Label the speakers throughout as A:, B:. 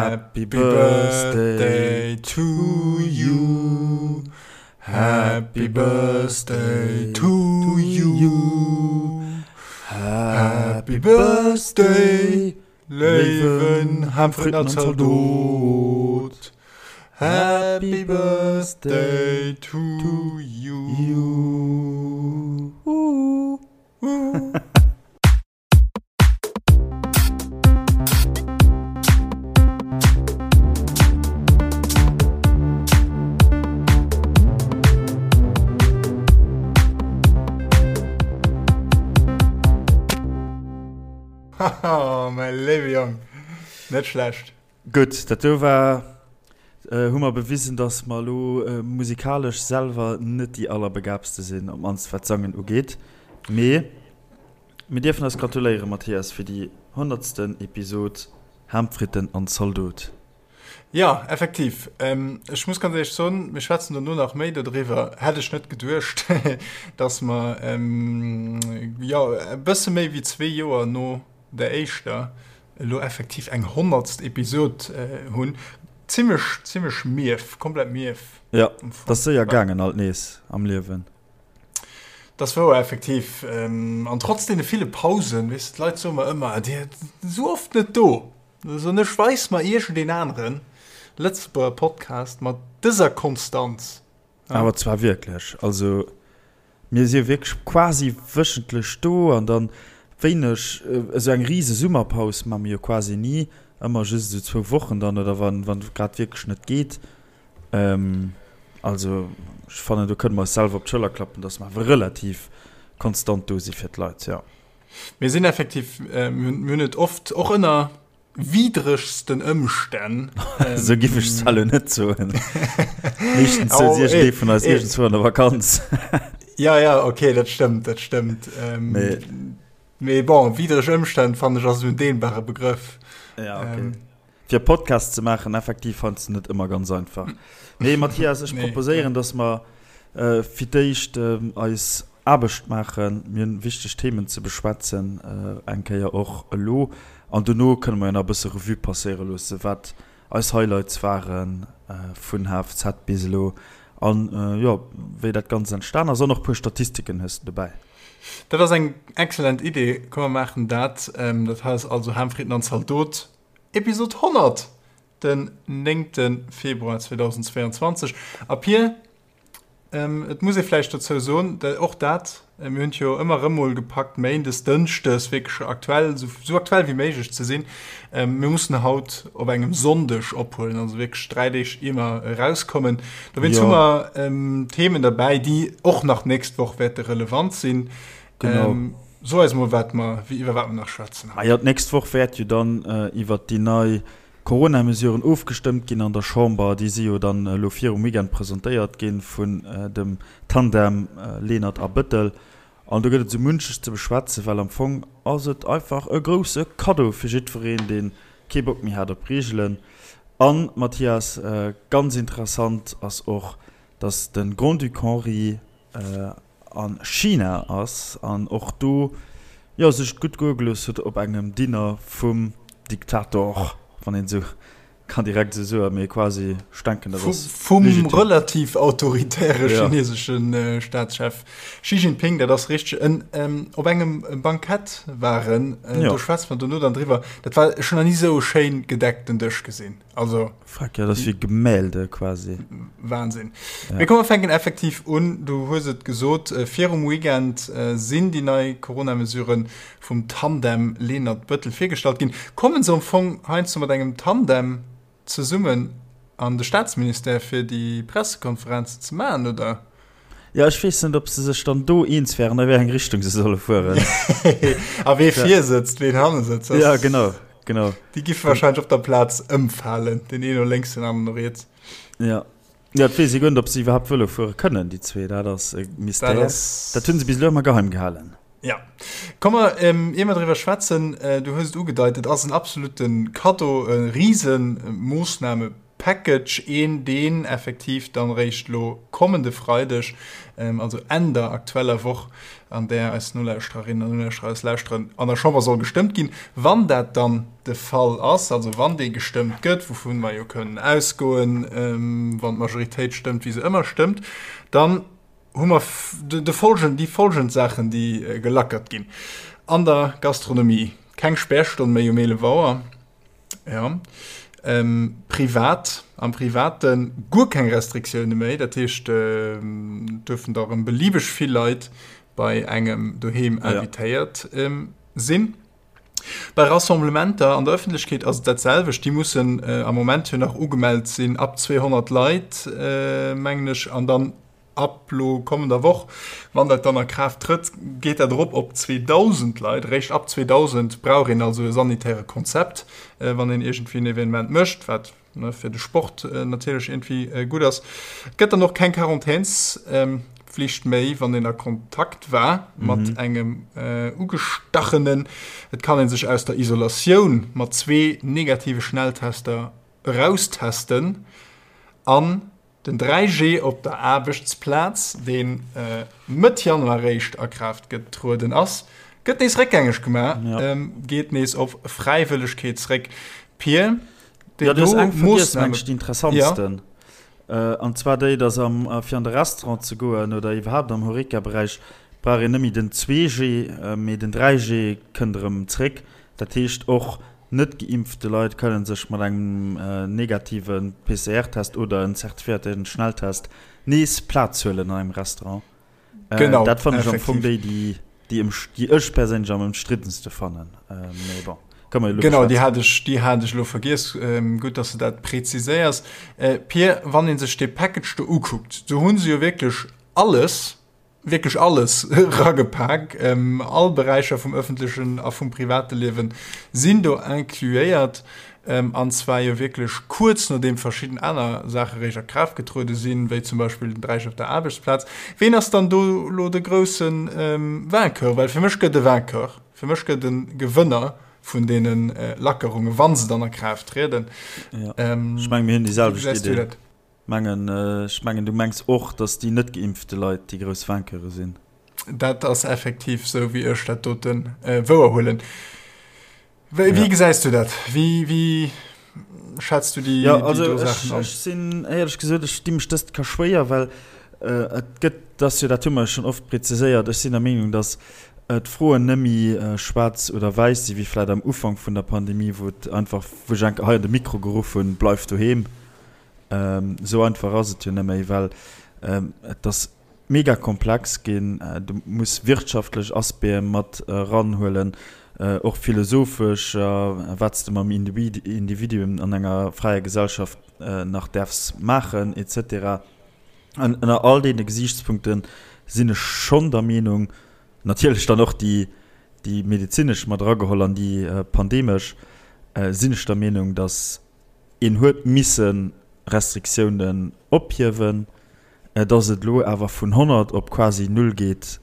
A: Happy Birthday to you. Happy Birthday to you. Happy Birthday, léiwen Hamfriedner Zaldot. Happy Birthday to you. Haha, mäi léiwe Jong, net schlecht.
B: Gutt, dat do war, hu mer bewisen, dass mer elo musikalesch selwer net déi allerbegaabste sinn, op d'mannst wat d'Sangen ugeet. Mee mir dierfen eis gratuléieren, Mathias, fir déi honnertsten Episod Ham, Fritten an Zaldot.
A: Jo, effektiv. Ech muss ganz éierlech soen, mir schwätzen dono nach méi dodriwwer, hätt ech net geduecht, dass mer, jo, e bësse méi wéi zwee Joer no der éischter elo effektiv eng honnertst Episod hunn. Zimmlech, zimmlech mief, komplett mief.
B: Jo, 't ass séier gaangen alt nees am Liewen.
A: 't ass wouer, effektiv. An trotz deene ville Pausen, weess de, d'Leit soe mer ëmmer, Dir sidd esou oft net do. Da soen ech, Weis mer iergendeen anere Lëtzebuerger Podcast mat dëser Konstanz.
B: Awer zwar wierklech. Also mir si wierklech quasi wéchentlech do an dann wéineg, esou eng rise Summerpaus maache mir jo quasi ni, ëmmer just esou zwou Wochen dann oder wann wann et grad wierklech net geet. Also ech fannen do kënne mer eis selwer op d'Schëller klappen, datt mer awer relativ konstant do si fir d'Leit, jo.
A: Mir sinn effektiv, mir hunn et oft och ënner widregsten Ëmstänn.
B: Esou giff ech zwar elo net soen. Meeschtens souz iergendee vun eis iergendzwou an der Vakanz.
A: Ja, ja, okay, dat stëmmt, dat stëmmt. Mee, mee bon, widreg Ëmstänn fannen ech ass esou en dehnbare Begrëff.
B: Ja, okay. Fir e Podcast ze maachen, effektiv heiansdo net ëmmer ganz einfach. Mee Mathias, ech proposéieren, dass mer fir d'éischt eis Aarbecht maachen. Mir hunn wichteg Themen ze beschwätzen, eng Kéier och elo. An dono kënne mer jo nach e bësse Revue passéiere loosse, wat eis Highlights ware vun HFZ bis elo an, jo, wéi dat Ganzt entstan ass. An och e puer Statistiken hues de dobäi.
A: Dat ass eng excellent Idee. Komm mer maachen dat. Dat hei ass also Ham, Fritten an Zaldot, Episod 100, den 9. Februar 2022. A Pir, Et muss ee vläicht dozou soen, och dat, mir hunn et jo ëmmer erëm mol gepackt, méindes, dënschdes wierklech aktuell, esou aktuell wéi méiglech ze sinn. Mir mussen haut op engem Sonndeg ophuelen, also wierklech 3 Deeg ier mer erauskommen. Dowéinst hu mer Themen derbäi, déi och nach d'nächst Woch wäerte relevant sinn. Genau. So eis mol, wat mer, iwwer wat mer nach schwätzen
B: haut. Majo, d'nächst Woch wäert jo dann iwwert déi nei Corona-Mesuren ofgestëmmt ginn an der Chamber. Déi si jo dann elo virum Weekend presentéiert gi vun dem Tandem Lenert a Bëttel. An do gëtt et esou munches ze beschwätzen, well am Fong ass et einfach e grousse Kaddo fir jiddwereen, dee kee Bock méi hat op Reegelen. An, Mathias, ganz interessant ass och, datt de Grand-Duc Henri a China ass an och do jo sech et gutt goe gelooss huet op engem Dinner vum Diktator, wann een esou kann direkt esou soen, mee quasi, ech denken dat ass
A: Vum legitim. relativ autoritäre chinesesche Staatschef Xi Jinping, dat ass richteg, en op engem Bankett waren, do schwätze mer dono dann driwwer, dat war, ech hunn nach ni esou e schéin gedeckten Dësch gesinn.
B: Also Fuck, ja, dat ass wéi Gemälde quasi.
A: Wahnsinn. Ja. Mee komm, mer fänken effektiv un. Du hues et gesot, virum Weekend sinn déi nei Corona-Mesurë vum Tandem Lenert-Bëttel virgestallt ginn. Kommen se am Fong heiansdo mat engem Tandem zesummen an de Staatsministère fir déi Pressekonferenzen ze maachen, oder?
B: Jo, ech weess net, ob se sech dann do eens wären, a wéi eng Richtung se solle fueren.
A: A wee vir sëtzt, ween hanne sëtzt.
B: Ja, genau, genau.
A: Déi giffe wahrscheinlech op der Plaz ëmfalen, deen een no lénks, den aneren no riets.
B: Ja. Ja, et weess ee guer net, ob se iwwerhaapt Vëlo fuere kënnen, déi zwee. Dat ass e Mystère. Dat hunn se bis elo ëmmer geheim gehalen.
A: Ja. Komm mer, ier mer driwwer schwätzen, du hues et ugedeit, et ass en absolute Kaddo, e Risemoossname. Package, een deen effektiv dann eréischt elo kommende Freideg, also Enn der aktueller Woch, an där eis Nolauschtererinnen an Nolauschterer eis lauschteren, an der Chamber soll gestëmmt ginn. Wann dat dann de Fall ass, also wann dee gestëmmt gëtt, wouvun mer jo kënnen ausgoen, wann d'Majoritéit stëmmt, wéi se ëmmer stëmmt, dann hu mer de folgend, déi folgend Saachen, déi gelackert ginn. An der Gastronomie keng Spärstonn méi um 11 Auer. Ja. Ähm, privat, am Private guer keng Restriktioune méi. Dat heescht, äh, duerfen da rëm beliebeg vill Leit bei engem doheem invitéiert ja. ähm, sinn. Bei Rassemblementer an der Ëffentlechkeet ass et dat selwecht. Déi mussen äh, am Moment jo nach ugemellt sinn ab 200 Leit, äh, mengen ech, an dann Ab lo kommender Woch, wann dat dann a Kraaft trëtt, geet dat erop op 2.000 Leit. Eréischt ab 2.000 brauch een also e sanitäre Konzept, wann een iergendwéi en Evenement mécht, wat fir de Sport natierlech iergendwéi gutt ass. Et gëtt dann och keng Quarantänspflicht méi, wann een a Kontakt war mat engem Ugestachenen. Et kann ee sech aus der Isolatioun mat zwee negative Schnelltester eraustesten an Den 3G op der Aarbechtsplaz, dee Mëtt Januar réischt a Kraaft getrueden ass, gëtt nees réckgängeg gemaach, geet nees op Fräiwëllegkeet zréck. Pir,
B: déi do Moossname. Déi interessantsten, an zwar déi, datt fir an de Restaurant ze goen oder iwwerhaapt am Horeca-Beräich brauch een net méi den 2G, mee den 3G kënnt erëm zréck. Dat heescht och Net geimpfte Leit kënnen sech mat engem negative PCR-Test oder en zertifiéierte Schnelltest nees Plaz huelen an engem Restaurant. Genau, dat fannen ech am Fong déi, déi, déi déi ech perséinlech am ëmstriddenste fannen. Mee bon,
A: kënne mer jo elo Genau, déi hat ech, déi hat ech elo vergiess. Gutt, dass de dat preziséiers. Pir, wann ee sech dee Package do ukuckt, do hu se jo wierklech alles, wierklech alles eragepak. All Beräicher vum ëffentlechen a vum private Liewe sinn do incluéiert, an zwar jo wierklech kuerz nodeem verschidden aner Saache réischt a Kraaft getruede sinn, wéi zum Beispill den Dräich op der Aarbechtsplaz. Ween ass dann do elo de grousse Vainqueur? Well fir mech gëtt e Vainqueur, fir mech gëtt e Gewënner vun deene Lackerungen, wa se dann a Kraaft trieden.
B: Ech menge mir hunn déi selwecht Idee. Mengen, ech mengen du mengs och, datt déi net geimpfte Leit déi grouss Vainqueure sinn.
A: Dat ass effektiv sou wéi ech dat doten wouer huelen. Wéi ja. gesäis du dat? Wéi, wéi schätz du déi,
B: ja, also déi do Saachen an? Ech sinn éierlech gesot, ech di mech dëst ka schwéier, well äh, et gëtt, dass jo dat hu mer schonn oft präziséiert, ech sinn der Meenung, datt äh, d'Froen nëmmi äh, schwaarz oder wäiss si wéi vläit am Ufank vun der Pandemie, wou et einfach, wou ech enke hei an de Mikro geruff hunn, Bleif doheem. Esou einfach ass et jo net méi, well et ass mega komplex ginn. Du muss wirtschaftlech Aspecte mat eranhuelen, och philosophesch, wat s de mam Individuum an enger fräier Gesellschaft nach däerfs maachen et cetera. An ënner all deene Gesiichtspunkte sinn ech schonn der Meenung, natierlech dann och déi medezinesch mat erageholl an déi pandemesch, sinn ech der Meenung, datt Een huet misse Restriktiounen ophiewen. Datt et elo awer vun 100 op quasi null geet,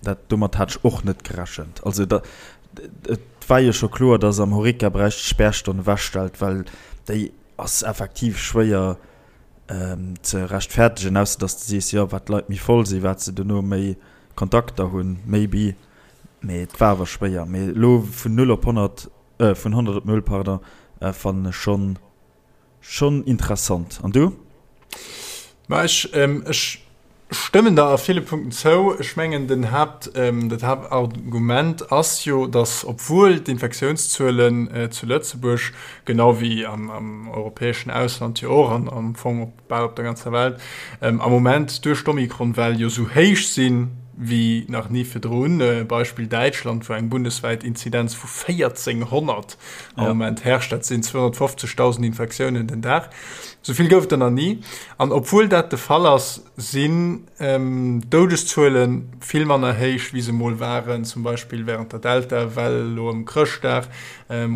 B: dat domat hat ech och net gerechent. Also et war jo scho kloer, datt am Horeca-Beräich d'Spärstonn ewechstellt, well déi ass effektiv schwéier ze rechtfertegen, ausser datt s de sees, jo wat d'Leit méi voll sinn, wat se dono méi Kontakter hunn, maybe. Mee et war awer schwéier. Mee elo vun null op 100 Vun 100 op 0, pardon, fannen ech schon schon interessant. An du?
A: Ma ech ech stëmmen der a ville Punkten zou. Ech mengen den Haapt dat Haaptargument ass jo, datt obwuel d'Infektiounszuelen zu Lëtzebuerg, genau wéi am am europäeschen Ausland jo och an am Fong op bal op der ganzer Welt, am Moment duerch d'Omikron-Well jo sou héich sinn wéi nach ni virdrun, Beispill Däitschland, wou eng bundeswäit Inzidenz vu 1400 am Moment herrscht, dat sinn 250.000 Infektiounen den Dag, sou vill gouf et der nach ni. An obwuel dat de Fall ass, sinn d'Doudeszuele vill manner héich, wéi se mol waren, zum Beispill wärend der Delta-Well elo ëm Chrëschtdag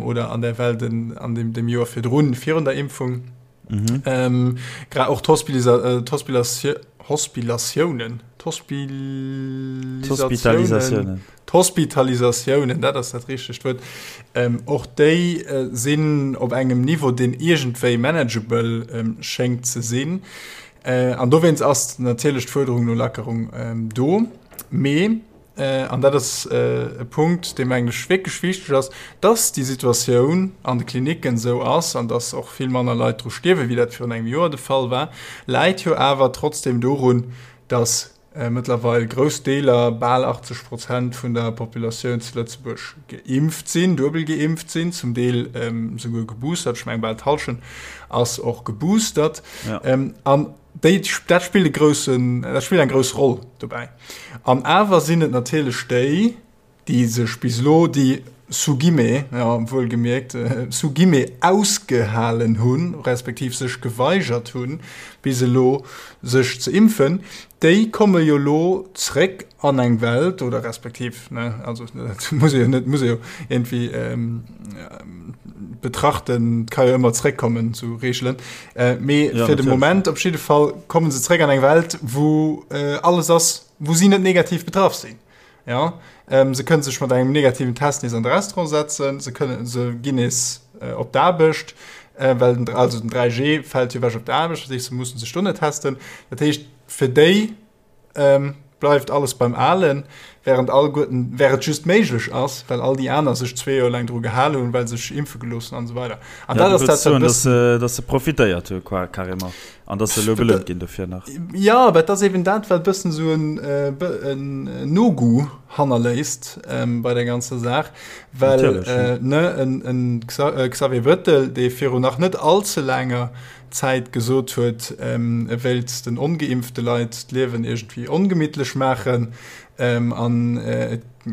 A: oder an der Well an dem Joer virdrun, virun der Impfung. Mhm. Grad och d'Hospilatiounen, d'Hospitalisatiounen, d'Hospitalisatiounen, dat ass dat richtegt Wuert, och déi sinn op engem Niveau, deen iergendwéi manageable schéngt ze sinn. An dowéinst ass natierlech d'Fuerderung no Lackerung do. Mee an dat ass e Punkt, dee mengen ech wierklech wichteg ass, dass déi Situatioun an de Klinicken esou ass an dass och vill manner Leit dru stierwen, wéi dat virun engem Joer de Fall war, läit jo awer trotzdem dorun, dass mëttlerweil grouss Deeler, bal 80 Prozent vun der Populatioun zu Lëtzebuerg geimpft sinn, duebel geimpft sinn, zum Deel souguer geboostert, ech mengen bal d'Hallschent ass och geboostert. An Déi, dat spillt e groussen, dat spillt eng grouss Roll dobäi. An awer sinn et natierlech déi, déi sech bis elo, déi sous guillemets, ja, wuelgemierkt, sous guillemets ausgehalen hunn, respektiv sech geweigert hunn, bis elo sech ze impfen, déi komme jo elo zréck an eng Welt, oder respektiv, ne, also dat muss ee jo net, muss ee jo iergendwéi betrachten, et ka jo ëmmer zréckkommen zu Reegelen, mee ja, fir de Moment op jidde Fall komme se zréck an eng Welt, wou alles ass, wou si net negativ betraff sinn. Ja, se kënne sech mat engem negativen Test nees an de Restaurant setzen, se kënnen, se ginn nees op d'Aarbecht, well den, also den 3G fält jo ewech op der Aarbecht, dat heescht, se mussen sech do net testen. Dat heescht, fir déi bleift alles beim Alen, während alleguerten, während et just méiglech ass, well all déi aner sech zwee Joer laang dru gehal hunn, well se sech impfe gelooss hunn an esou weider.
B: An dat ass dat, wat e bëssen. Dass se profitéiert hu carrément an dass se elo belount ginn dofir nach.
A: Jo, awer et ass eben dat, wat e bëssen esou en No-Goût hannerléisst bei der ganzer Saach, well ne en Xavier Bettel, dee virun nach net all ze laanger Zäit gesot huet, e wéilt den ongeimpfte Leit d'Liewen iergendwéi ongemittlech maachen an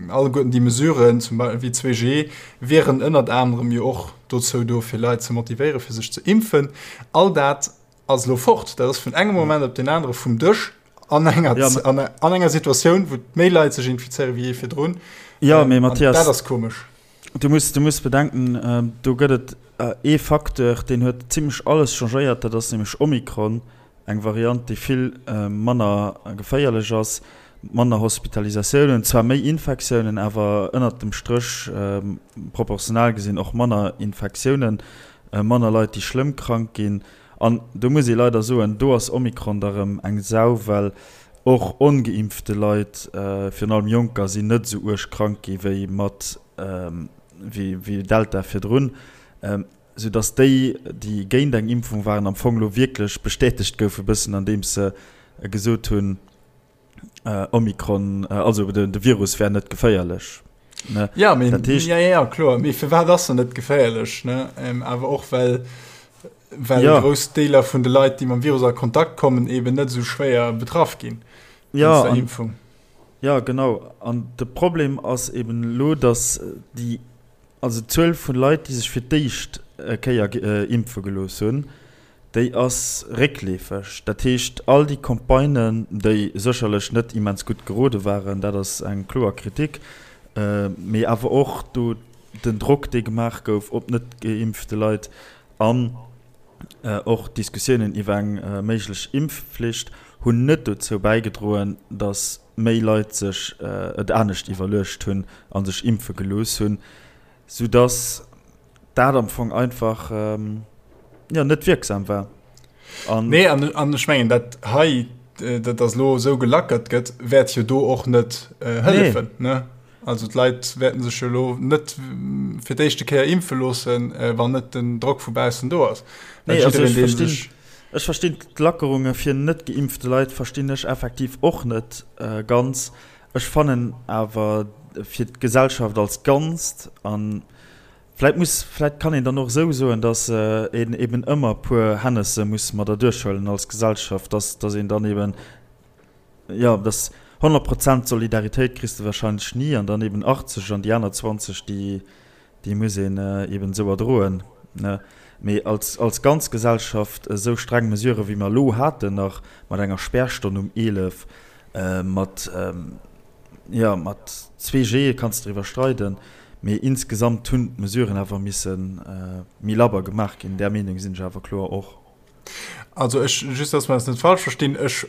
A: alleguerten déi Mesuren, zum Beispill wéi 2G, wieren ënnert anerem jo och dozou do, fir Leit ze motivéieren, fir sech ze impfen. All dat ass elo fort. Dat ass vun engem Moment op deen anere vum Dësch an enger, an enger Situatioun, wou méi Leit sech infizéiere wéi jee virdrun.
B: Jo, mee Mathias,
A: dat ass komesch.
B: Du muss, du muss bedenken, do gëtt et ee Facteur, deen huet zimlech alles changéiert, dat ass nämlech Omikron, eng Variant, déi vill manner geféierlech ass, manner Hospitalisatiounen, zwar méi Infektiounen, awer ënnert dem Stréch proportional gesinn och manner Infektiounen, manner Leit, déi schlëmm krank ginn. An do muss ee leider soen, do ass Omikron da rëm eng Sau, well och ongeimpfte Leit, virun allem Jonker, sinn net esou uerg krank gi wéi mat wéi Delta virdrun, sou datt déi, déi géint eng Impfung waren, am Fong elo wierklech bestätegt goufe bëssen, andeems se gesot hunn, Omikron, also de Virus wär net geféierlech.
A: Ne? Ja, mee, dat heescht, ja, ja, kloer. Mee firwat ass en net geféierlech? Ne? Ähm, awer och well, well ja. grouss Deeler vun de Leit, déi mam Virus a Kontakt kommen, eben net esou schwéier betraff ginn.
B: Ja, an, Impfung. Ja, genau. An de Problem ass eben elo, dass déi, also d'Zuel vun Leit, déi sech fir d'éischt Kéier impfe gelooss hunn, déi ass réckleefeg. Dat heescht, all déi Campagnen, déi sécherlech net immens gutt gerode waren, dat ass eng kloer Kritik, mee awer och do den Drock, dee gemaach gouf op net geimpfte Leit an och d'Diskussiounen iwwer eng méiglech Impfflicht, hunn net dozou bäigedroen, datt méi Leit sech et anescht iwwerluecht hunn a sech impfe gelooss hunn, soudatt dat am Fong einfach jo net wierksam war.
A: An nee, an, an ech mengen dat hei dat ass lo esou gelackert gëtt, wäert jo do och net äh, hëllefen. Nee. Ne? Also d'Leit wäerten sech jo lo net fir d'éischte Kéier impfe loossen, äh, wann net den Drock vu baussen do ass.
B: Nee, also ech verstinn, ech verstinn d'Lackerunge fir net geimpfte Leit verstinn ech effektiv och net äh, ganz. Ech fannen awer fir d'Gesellschaft als Ganzt an Vläit muss, vläit kann een dann och esou soen, datt een eben ëmmer e puer Hennesse muss mat erduerchhuelen als Gesellschaft, datt, datt een dann eben, jo, datt 100 Prozent Solidaritéit kriss de wahrscheinlech ni an dann eben 80 an déi aner 20, déi, déi muss een eben esou erdroen, ne. Mee als, als ganz Gesellschaft esou streng Mesurë wéi mer elo haten nach, mat enger Spärstonn um 11, mat, Jo, mat 2G kanns de driwwer streiden, mee insgesamt hunn d'Mesuren awer misse méi labber gemaach ginn. Där Meenung sinn ech awer kloer och.
A: Also ech, just dass mer eis net falsch verstinn, ech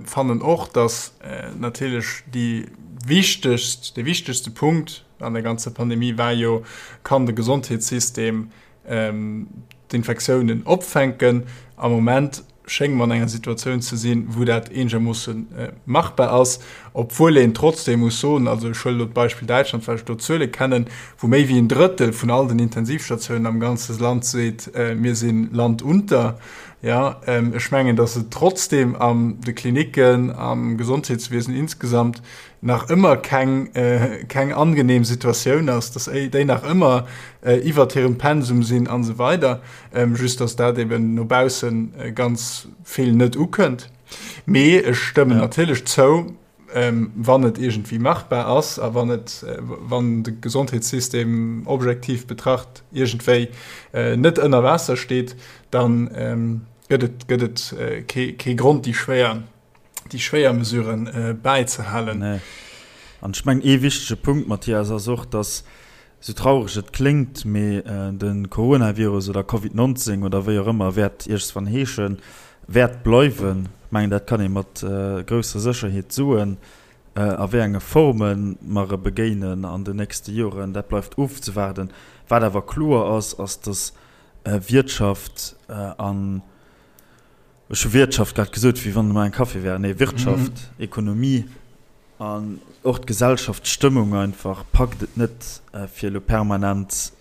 A: fannen och, dass natierlech déi wichtegst, dee wichtegste Punkt an der ganzer Pandemie war jo, Kann de Gesondheetssystem d'Infektiounen opfänken? Am Moment schénge mer an enger Situatioun ze sinn, wou dat eenegermoosse machbar ass, obwuel een trotzdeem muss soen, also ech huelen elo d'Beispill Däitschland, well ech do d'Zuele kennen, wou méi wéi en Drëttel vun all den Intensivstatiounen am ganze Land seet, mir si Land unter. Jo, ech mengen, datt et trotzdeem an de Klinicken, am Gesondheetswiesen insgesamt nach ëmmer keng, keng angenehm Situatioun ass, datt déi nach ëmmer iwwert hirem Pensum sinn an esou weider. Just datt dat eben no bausse ganz vill net ukënnt. Mee ech stëmmen natierlech zou, wann et iergendwéi machbar ass a wann et, wann de Gesondheetssystem objektiv betracht iergendwéi net ënner Waasser steet, da gëtt et, gëtt et kee, kee Grond, déi schwéier, déi schwéier Mesuren bäizehalen.
B: Nee. An ech mengen, ee wichtege Punkt, Mathias, ass och, dass, esou traureg et kléngt, mee de Coronavirus oder Covid 19 oder wéi och ëmmer wäert iergendswann heeschen, wäert bleiwen. Ech mengen, dat kann ee mat grousser Sécherheet soen. A wéi enge Forme mer e begéinen an den nächste Joren, dat bleift ofzewaarden. Wat awer kloer ass, ass, dass Wiertschaft an, ech hu Wiertschaft grad gesot, wéi wann mer eng Café wären, nee, Wirtschaft, Ekonomie an och d'Gesellschaft, d'Stëmmung einfach packt et net, fir elo permanent,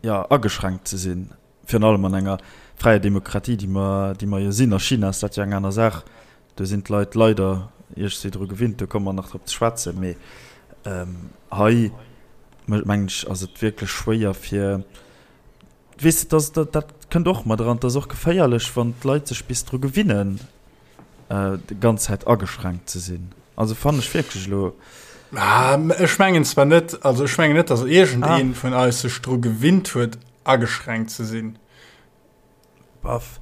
B: jo, ageschränkt ze sinn. Virun allem an enger fräier Demokratie, déi mer, déi mer jo sinn. A China ass dat jo eng aner Saach. Do sinn d'Leit leider iergendwéi dru gewinnt. Do komme mer nach drop ze schwätzen. Mee hei, mengen ech, ass et wierklech schwéier fir, weess de, dat, dat kënnt och mat eran, et ass och geféierlech, wann d'Leit sech bis dru gewinnen, déi ganz Zäit ageschränkt ze sinn. Also fannen ech wierklech elo.
A: Ech mengen zwar net, also ech mengen net, datt iergendee vun eis sech dru gewinnt huet, ageschränkt ze sinn.
B: Baff.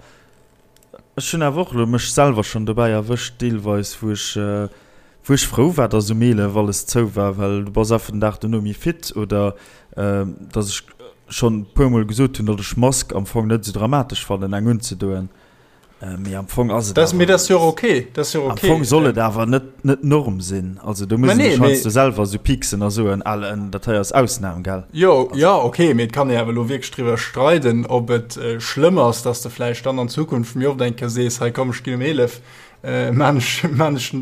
B: Ech hunn awer och elo mech selwer schonn dobäi erwëscht deelweis, wou ech, wou ech frou war, dass um 11 alles zou war, well du bass einfach den Dag dono méi fit oder dass ech schonn e puermol gesot hunn, datt ech Mask am Fong net esou dramatesch fannen, eng unzedoen. Mee am Fong ass et
A: awer. Mee dat ass jo och ok. Dat ass jo och ok.
B: Am Fong soll et awer net, net d'Norm sinn. Also do muss ee sech heiansdo selwer esou pieksen a soen, Al, dat hei ass Ausnam, gell?
A: Jo, jo, ok, mee et kann ee awer elo wierklech driwwer streiden, ob et schlëmm ass, dass de vläicht dann an Zukunft méi oft eng Kéier sees, hei komm, ech ginn um 11, maan ech, maan ech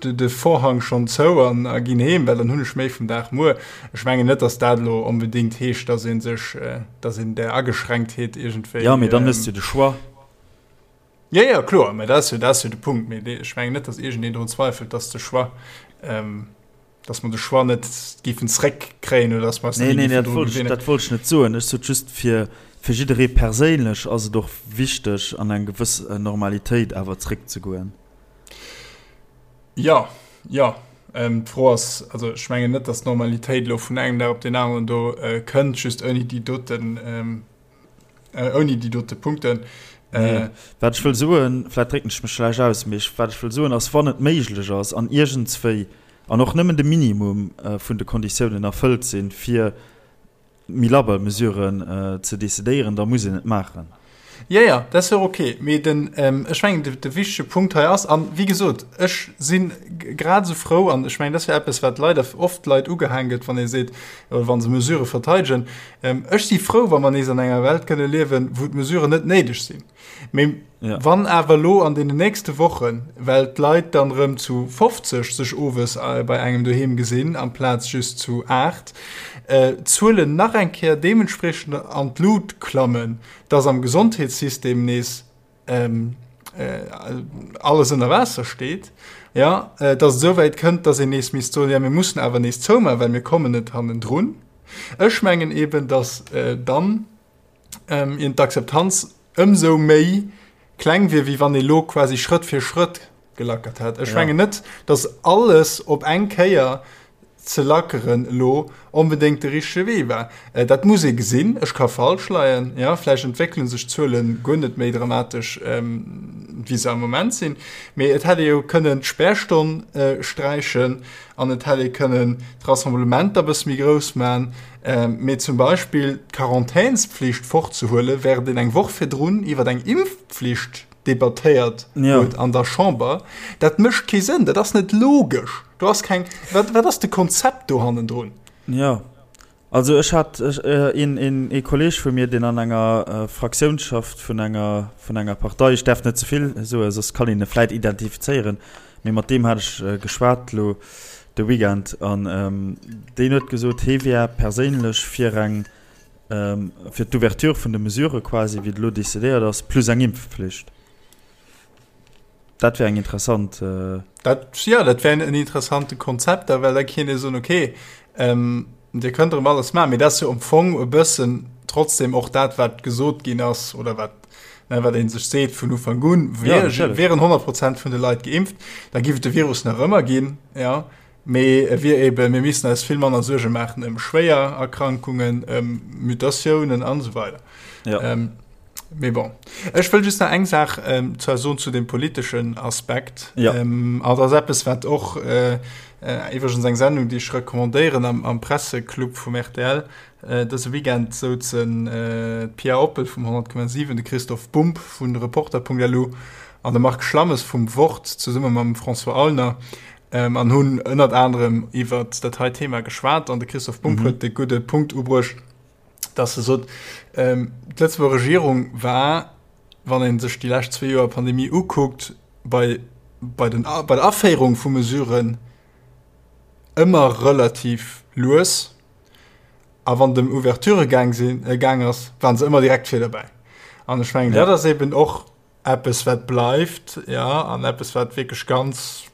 A: de Vorhang schonn zou an a ginn heem, well dann hunn ech méi vum Dag muer. Ech mengen net, dass dat elo onbedéngt heescht, dass ee sech, dass een där Ageschränktheet iergendwéi.
B: Jo, mee dann hues de jo de Choix.
A: Jo, jo, kloer, mä dat ass jo, dat ass jo de Punkt. Mee ech mengen net, dass iergendeen drun zweifelt, dass de Choix, dass mer de Choix net géifen zréckkréien oder dass mer eis
B: net géifen dru gewinnen. Nee, nee, dat wollt ech net soen. Ech sot just, fir, fir jidderee perséinlech ass et och wichteg, an eng gewëss Normalitéit awer zréckzegoen.
A: Jo, jo. D'Fro ass, also ech mengen net, datt d'Normalitéit elo vun engem Dag op deen aneren do kënnt, just ouni déi doten, ouni déi dote Punkten.
B: Nee, wat ech wëll soen, vläicht drécken ech mech schlecht aus, mee wat ech wëll soen ass, wann et méiglech ass an iergendswéi an och nëmmen de Minimum vun de Konditiounen erfëllt sinn, fir méi labber Mesuren ze decidéieren, da muss een et maachen.
A: Jo, jo, dat ass jo och ok. Mee den, ech mengen, de wichtege Punkt hei ass, an wéi gesot, ech si grad esou frou, an ech mengen, dat ass jo eppes, wat leider oft Leit ugehaang gëtt, wann ee seet, oder wa se Mesurë verteidegen, ech si frou, wa mer nees an enger Welt kënne liewen, wou d'Mesuren net néideg sinn. Mee ja. wann awer lo an den nächste Wochen, well d'Leit dann rëm zu 50 sech owes äh, bei engem doheem gesinn, amplaz just zu 8, äh, d'Zuelen nach eng Kéier deementspriechend an d'Lut klammen, dass am Gesondheetssystem nees ähm, äh, alles ënner Waasser steet, ja, äh, dass et esouwäit kënnt, dass een nees misst soen, ja, mir mussen awer nees zoumaachen, well mir kommen net hannendrun. Ech mengen eben, dass äh, dann ähm, ieren d'Akzeptanz ëmsou méi kleng wier, wéi wann ee lo quasi Schrëtt fir Schrëtt gelackert hätt. Ech ja. mengen net, dass alles op eng Kéier ze lackeren elo onbedéngt de richtege Wee war. Äh, dat muss ee gesinn. Ech ka falsch leien. Ja, vläicht entwéckele sech d'Zuele guer net méi dramatesch, ähm, wéi se am Moment sinn. Mee et hätt ee jo kënnen d'Spärstonn äh, sträichen an et hätt ee kënnen d'Rassemblementer e bësse méi grouss man. Mee zum Beispill d'Quarantänspflicht fortzehuelen, während een eng Woch virdrun iwwer eng Impfpflicht debattéiert huet an der Chamber, dat mécht kee Sënn, dat ass net logesch. Do ass keng, wat, wat ass de Konzept do hannendrun?
B: Jo, also ech hat een, een, ee Kolleeg vu mir, deen an enger Fraktioun schafft vun enger, vun enger Partei, ech däerf net ze vill soen, soss kann een e vläit identifizéieren, mee mat deem hat ech geschwat elo de Weekend an deen huet gesot, hee wär perséinlech fir eng, fir d'Ouverture vun de Mesurë quasi, wéi et elo decidéiert ass, plus eng Impfpflicht. Dat wär eng interessant.
A: Dat, jo, dat wär en interessante Konzept, well da kéint ee soen, okay, Dir kënnt erëm alles maachen, mee dat ass jo am Fong e bëssen trotzdem och dat, wat gesot ginn ass oder wat, ne, wat ee sech seet vun Ufank un, ja, wieren 100 Prozent vun de Leit geimpft, da giff et de Virus nach ëmmer ginn, ja, mee e wier eben, mir missten eis vill manner Suerge maachen ëm schwéier Erkrankungen, ëm Mutatiounen an esou weider. Ja. Ähm, Mee bon. Ech wëll just nach eng Saach ähm, zwar soen zu dem politeschen Aspekt. Ja. Ähm, an dat ass eppes, wat och äh, äh, iwwregens eng Sendung, déi ech recommandéieren am, am Presseclub vum RTL. Äh, dëse Weekend souzen äh, d'Pia Oppel vum 100,7, de Christoph Bumb vun Reporter.lu an de Marc Schlammes vum Wort zesumme mam François Aulner ähm, an hunn ënnert anerem iwwer dat hei Thema geschwat an de Christoph Bumb mhm. huet de gudde Punkt ubruecht, dass e sot, d'Lëtzebuerger Regierung war, wann ee sech déi lescht zwee Joer Pandemie ukuckt, bei, bei, den, bei der Aféierung vu Mesuren ëmmer relativ lues. A wann et ëm Ouverturë gaang sinn, gaang ass, waren se ëmmer direkt vir derbäi. An ech mengen, dat ass eben och eppes wat bleift, jo, an eppes wat wierklech ganz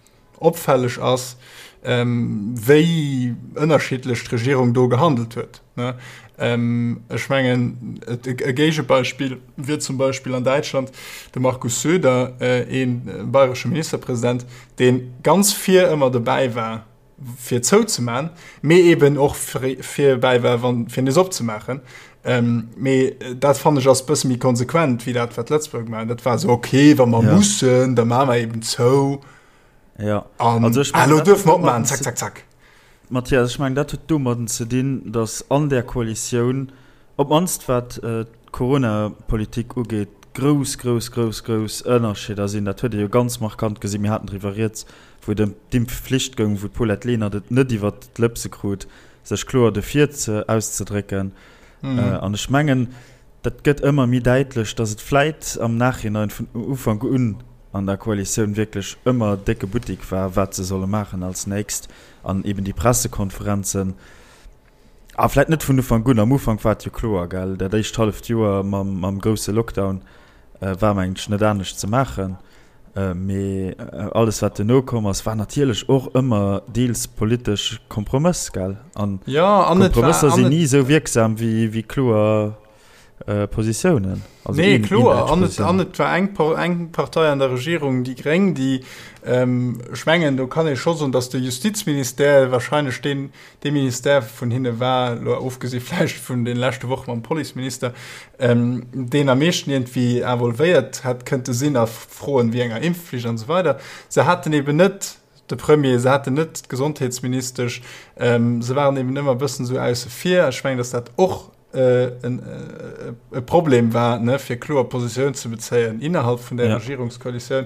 A: opfälleg ass, wéi ënnerschiddlech d'Regierung do gehandelt huet. Ech mengen, e Géigebeispill wier zum Beispill an Däitschland de Markus Söder, ee bayresche Ministerpresident, dee ganz vir ëmmer dobäi war, fir zouzeman, mee eben och fir bäi war, wann fir nees opzemaachen. Ähm, mee dat fannen ech ass bësse méi konsequent wéi dat wat Lëtzebuerg maachen. Dat war esou okay, wa mer ja. mussen, da maache mer eben zou.
B: Ja.
A: An also ech mein, ah, lo duerf mer opmachen, zack, zack, zack.
B: Mathias, ech mengen dat huet domadden ze dinn, datt an där Koalitioun, op d'mannst wat äh, d'Corona-Politik ugeet, grouss, grouss, grouss, grouss Ënnerscheeder sinn. Dat huet ee jo ganz markant gesinn. Mir haten driwwer rieds, wou et ëm d'Impfflicht goung, wou d'Paulette Lenert et net iwwert d'Lëpse krut, sech kloer dofir ze auszedrécken. An ech mengen, dat gëtt ëmmer méi däitlech, datt et vläit am Nachhinein vun Ufank un an der Koalitioun wierklech ëmmer décke Buttik war, wat se solle maachen als nächst an eben déi Pressekonferenzen, a vläit net vun Ufank un, am Ufank war et jo kloer, gell, dat éischt halleft Joer mam grousse Lockdown war mengen ech net anescht ze maachen. Mee alles wat duerno komm ass, war natierlech och ëmmer deels politesch Kompromëss, gell? An Kompromësser sinn ni esou wierksam wéi kloer Positiounen.
A: Also nee, kloer. An et, an et war eng, eng Partei an der Regierung, déi Gréng, déi, ech mengen, do kann ee scho soen, datt de Justizministère wahrscheinlech deen, dee Ministère vun hinne war, elo ofgesi vläicht vun de leschte Woche mam Policeminister, deen am meeschten iergendwéi involvéiert hätt kënnte sinn a Froen wéi enger Impfflicht an esou weider. Se haten eben net de Premier, se haten net d'Gesondheetsministesch, se waren eben ëmmer e bëssen esou ausse vir. Ech mengen, datt dat och e Problem war, ne, fir kloer Positioun ze bezéien innerhalb vun der Regierungskoalitioun.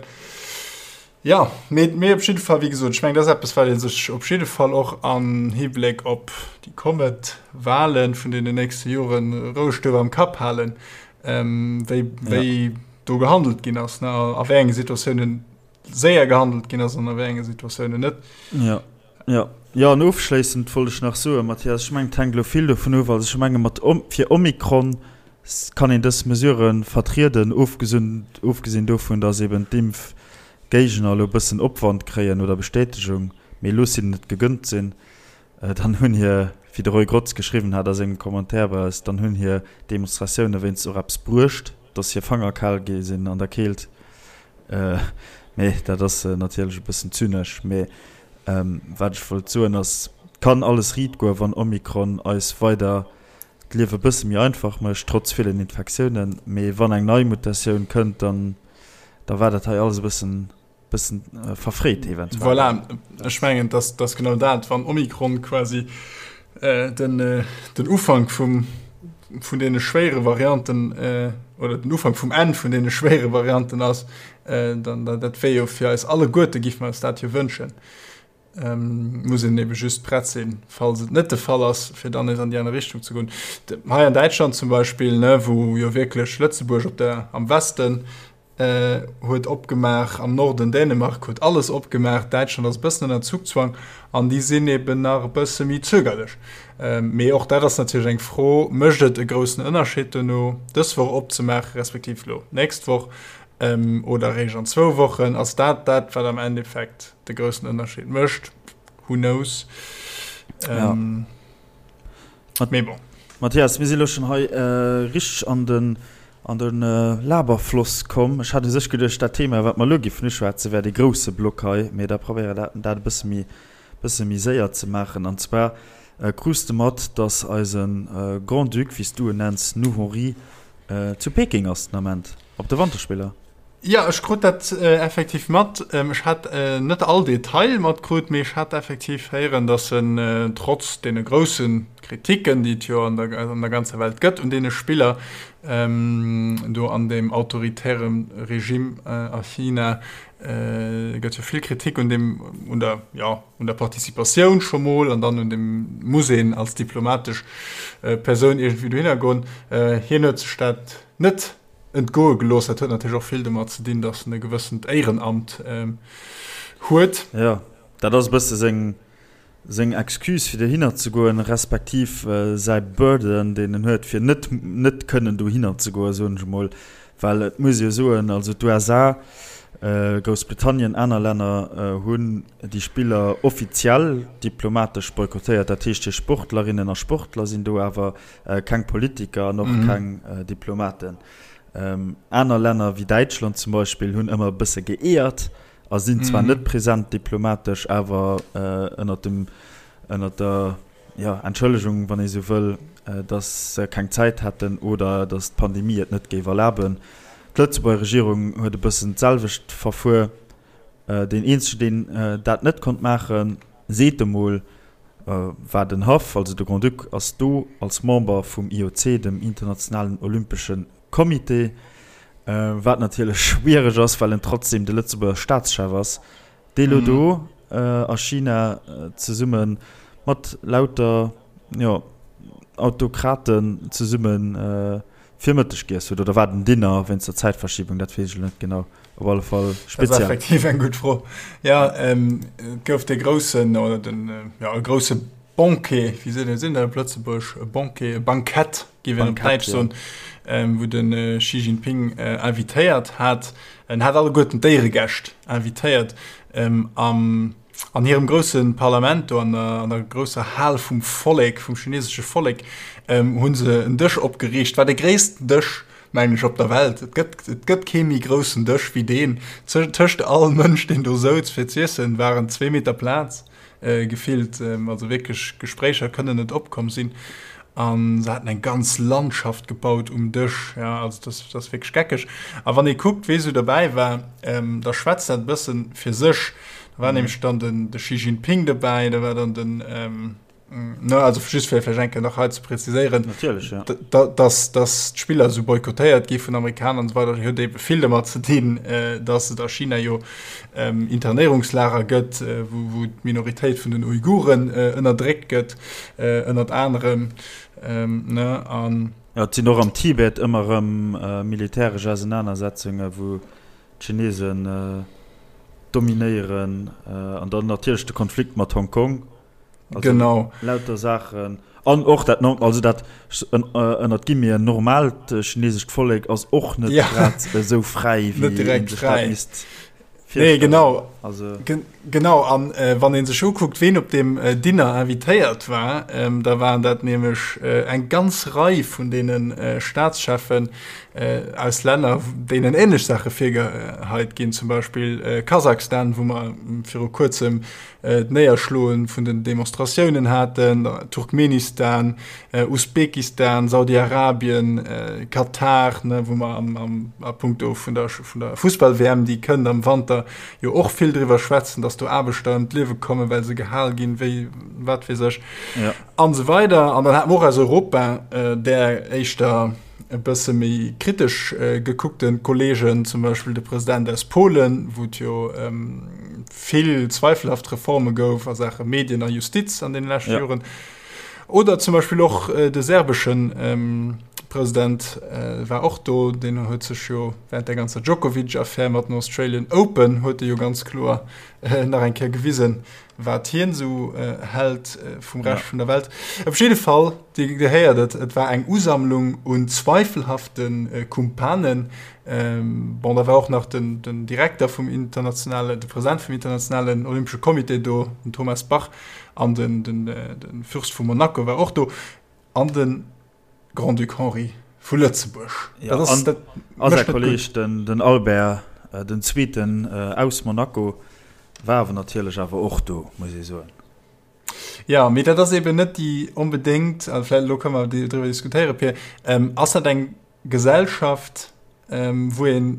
A: Ja, mee, mee op jidde Fall, wéi gesot, ech mengen, dat ass eppes, wat ee sech op jidde Fall och am Hibléck op déi kommend Wahlen vun deenen nächste Joren roueg duerf am Kapp halen, wéi, wéi do gehandelt ginn ass, ne, a wéi enge Situatiounen séier gehandelt ginn ass an a wéi enge Situatiounen net.
B: Ja, ja. Jo, an ofschléissend wollt ech nach soen, Mathias, ech mengen, et hänkt elo vill dovun of, also ech menge mat fir Omikron kann een dës Mesurë vertrieden, ofgesinn dovun, datt eben d'Impfgéigner elo e bëssen Opwand kréien oder Bestätegung, mee looss hinnen et gegënnt sinn, dann hunn hir, wéi de Roy Grotz geschriwwen hat a sengem Commentaire bei eis, dann hunn hir Demonstratioune wéinst och eppes bruecht, datt hir Fanger kal gi sinn an der Keelt. Mee dat ass natierlech e bëssen zynesch. Mee wat ech wollt soen ass, et kann alles riit goen, wann Omikron eis weider d'Liewe bësse méi einfach mécht, trotz villen Infektiounen. Mee wann eng nei Mutatioun kënnt, dann da war dat hei alles e bëssen bëssen verfréit eventuell.
A: Voilà, ech mengen, dass dass genau dat, wann Omikron quasi. den, den Ufank vum, vun deene schwéiere Varianten oder den Ufank vum Enn vun deene schwéiere Varianten ass, dann dat wär jo fir eis alleguerte, géife mer eis dat jo wënschen. Muss een ebe just prett sinn, falls et net de Fall ass, fir dann nees an déi aner Richtung ze goen. Hei an Däitschland zum Beispill, ne, wou jo wierklech Lëtzebuerg op der, am Westen huet opgemaach, am Norden Dänemark huet alles opgemaach, Däitschland ass e bëssen ënner Zugzwang an déi sinn eben nach e bësse méi zögerlech. Mee och dat ass natierlech eng Fro, Mécht et e groussen Ënnerscheed dono, dës Woch opzemaachen, respektiv elo d'nächst Woch oder eréischt an zwou Wochen? Ass dat dat, wat am Endeffekt de groussen Ënnerscheed mécht? Who knows?
B: Ja. Mee bon. Mathias, mir si lo schonn hei richteg an den, an de Laberfloss komm. Ech hat u sech geduecht, dat Thema, wat mer elo giffen uschwätzen, wär dee grousse Block hei. Mee da probéiere dat, dat e bësse méi, bësse méi séier ze maachen. An zwar krus de mat, dass eise Grand-Duc, wéi s du en nenns, nous Henri, zu Peking ass den Ament op de Wanterspiller.
A: Jo, ech krut dat effektiv mat. Ech hat net all Detail matkrut, mee ech hat effektiv héieren, datt en trotz deene grousse Kritiken, déi et jo an der an der ganzer Welt gëtt un deene Spiller do an deem autoritäre Regime a China, gëtt jo vill Kritik un deem, un der, jo, un der Participatioun scho mol an dann un deem, muss een als diplomatesch Persoun iergendwéi dohinner goen. Hien huet sech dat net entgoe gelooss. Dat huet natierlech och vill domat ze dinn, datt en e gewëssent Éierenamt huet.
B: Jo, dat ass e bësse seng, seng Excuse fir dohinner ze goen, respektiv säi Burden, deen en huet, fir net, net kënnen dohinner ze goen, soen ech emol. Well et muss ee jo soen, also d'USA, Groussbritannien, aner Länner hunn déi Spiller offiziell diplomatesch boykottéiert. Dat heescht, hir Sportlerinnen a Sportler sinn do, awer Keng Politiker an och keng Diplomaten. Aner Länner wéi Däitschland zum Beispill hunn ëmmer e bësse geeërt a sinn zwar net present diplomatesch, awer ënnert dem, ënnert der, jo, Entschëllegung, wann ee sou wëll, datt se keng Zäit hätten oder datt d'Pandemie et net géif erlaben. D'Lëtzebuerger Regierung huet e bëssen d'selwecht verfuer. Deen eenzegen, deen dat net konnt maachen, seet emol, war den Haff, also de Grand-Duc ass do als Member vum IOC, dem Internationalen Olympesche Comité, wat natierlech schwiereg ass, well en trotzdem de Lëtzebuerger Staatschef ass, dee lo do a China zesumme mat lauter, jo, Autokraten zesumme fir Mëtteg giess huet. Oder war et en Dinner wéinst der Zäitverschiebung, dat weess ech elo net genau. Op alle Fall
A: speziell. Dat ass effektiv eng gutt Fro. Ja, ähm, et gouf dee groussen, oder den, ja, e grousse Banquet, wéi seet een dat op Lëtzebuerg? E Banquet, e Bankett, géif een op Däitsch soen, ähm, wou de Xi Jinping invitéiert hat. En hat alleguerten d'Éieregäscht invitéiert, ähm, am, an hirem grousse Parlament do, an der, an der grousser Hal vum Vollek, vum chinesesche Vollek, ähm, hu se en Dësch opgeriicht, war de gréissten Dësch mengen ech, op der Welt. Et gëtt, et gëtt kee méi groussen Dësch wéi deen. Tëscht all Mënsch, deen do souz fir z'iessen, waren zwee Meter Plaz gefillt. Also wierklech Gespréicher kënnen net opkomm sinn. A se haten eng ganz Landschaft gebaut um Dësch. Ja, also dat, dat ass wierklech geckeg. A wann ee kuckt, wee sou derbäi war, da schwätzt dat e bësse fir sech. Da war nämlech dann den, de Xi Jinping dobäi, da war dann den, Ne, also just fir vläicht eng Kéier nach hei ze präziséieren,
B: Natierlech, ja.
A: dass, dass d'Spiller esou boykottéiert gi vun Amerikaner an esou weider, huet ebe vill domat ze dinn, dass et a China jo Internéierungslager gëtt, wou, wou d'Minoritéit vun den Uiguren ënnerdréckt gëtt, ënnert anerem, ne, an.
B: Jo, et sinn och am Tibet ëmmer erëm militäresch Ausenanersetzungen, wou d'Chinesen dominéieren, an dann natierlech de Konflikt mat Hongkong.
A: Also genau.
B: Lauter Saachen. An och dat, also dat ënnert Guillemeten normaalt chinesescht Vollek ass och net ja. grad esou fräi,
A: wéi net direkt fräi. Misst nee, genau. Also. Gen genau an äh, wann een sech ukuckt, ween op dem äh, Dinner invitéiert war, ähm, da waren dat nämlech äh, eng ganz Rei vun deenen äh, Staatscheffen äh, aus Länner, deenen ähnlech Sache virgeheit ginn, zum Beispill äh, Kasachstan, wou mer viru kuerzem d'Néierschloe vun den Demonstratiounen haten, Turkmenistan, Usbekistan, Saudi-Arabien, Katar, wou mer a punkto vun der Fussball-WM, déi kënnt am Wanter, jo och vill. driwwer schwätzen, datt do Aarbechter ëm d'Liewe kommen, well se gehal ginn, wéi wat weess ech, an esou weider. An dann hate mer och aus Europa där éischter e bësse méi kritesch gekuckte Kollegen, zum Beispill de President aus Polen, wou et jo vill zweifelhaft Reforme gouf a Saache Medien a Justiz an deene leschte Joren. Oder zum Beispill och de serbesche President war och do, deen huet sech jo während der ganzer Djokovic-Affär mat den Australian Open huet e jo ganz kloer nach eng Kéier gewisen, wat hien esou hält vum Rescht vun der Welt. Op jidde Fall, Dir héiert et, et war eng Usammlung un zweifelhafte Kumpanen. Bon, da war och nach den Direkter vum internationalen, de President vum internationalen Olympesche Comité do, den Thomas Bach, an den, den, den Fürst vu Monaco war och do, an de Grand-Duc Henri vu Lëtzebuerg.
B: Ja, dat ass, dat a säi Kolleeg, den, den Albert den Zweeten aus Monaco, war awer natierlech awer och do, muss ee soen.
A: Ja, mee dat ass eben net déi onbedéngt, also vläicht elo kënne mer driwwer diskutéieren, Pir, ass dat eng Gesellschaft, wou ee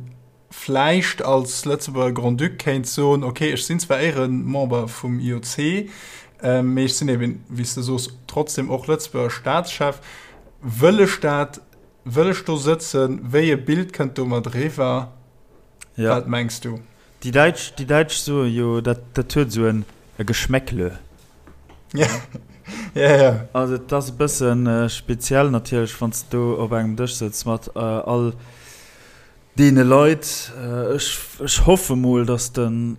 A: vläicht als Lëtzebuerger Grand-Duc kéint soen, okay, ech sinn zwar Éieremember vum IOC, mee ech sinn eben, wéi s de soos, trotzdem och Lëtzebuerger Staatschef. Wëll ech dat? Wëll ech do sëtzen? Wéi e Bild kënnt domat eriwwer?
B: Ja.
A: Wat mengs du?
B: Déi Däitsch, déi Däitsch soe jo, dat, dat huet esou en e Geschmäckle.
A: Ja, ja, ja.
B: Also et ass e bësse speziell natierlech, wann s de do op engem Dësch sëtz mat all deene Leit. Ech, ech hoffe mol, datt de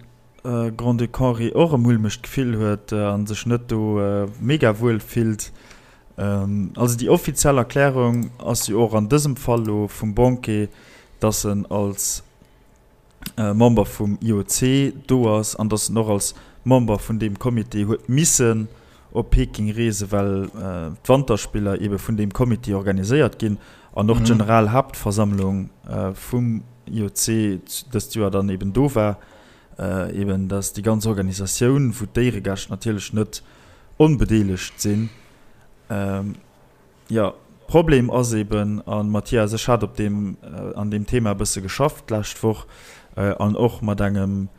B: Grand-Duc Henri och e mulmegt Gefill huet a sech net do mega wuel fillt. Also déi offiziell Erklärung ass jo och an dësem Fall lo vum Banquet, datt en als Member vum IOC do ass an datt en och als Member vun deem Comité huet missen op Peking reesen, well d'Wanterspiller eebe vun deem Comité organiséiert ginn an och d'Generalhaaptversammlung vum IOC dëst Joer dann eeben do war. Eeben datt déi ganz Organisatioun, wou d'Éieregäscht natierlech net onbedeelegt sinn. Jo, Problem ass eben, a Mathias, ech hat op deem, an deem Thema e bësse geschafft d'lescht Woch an och mat engem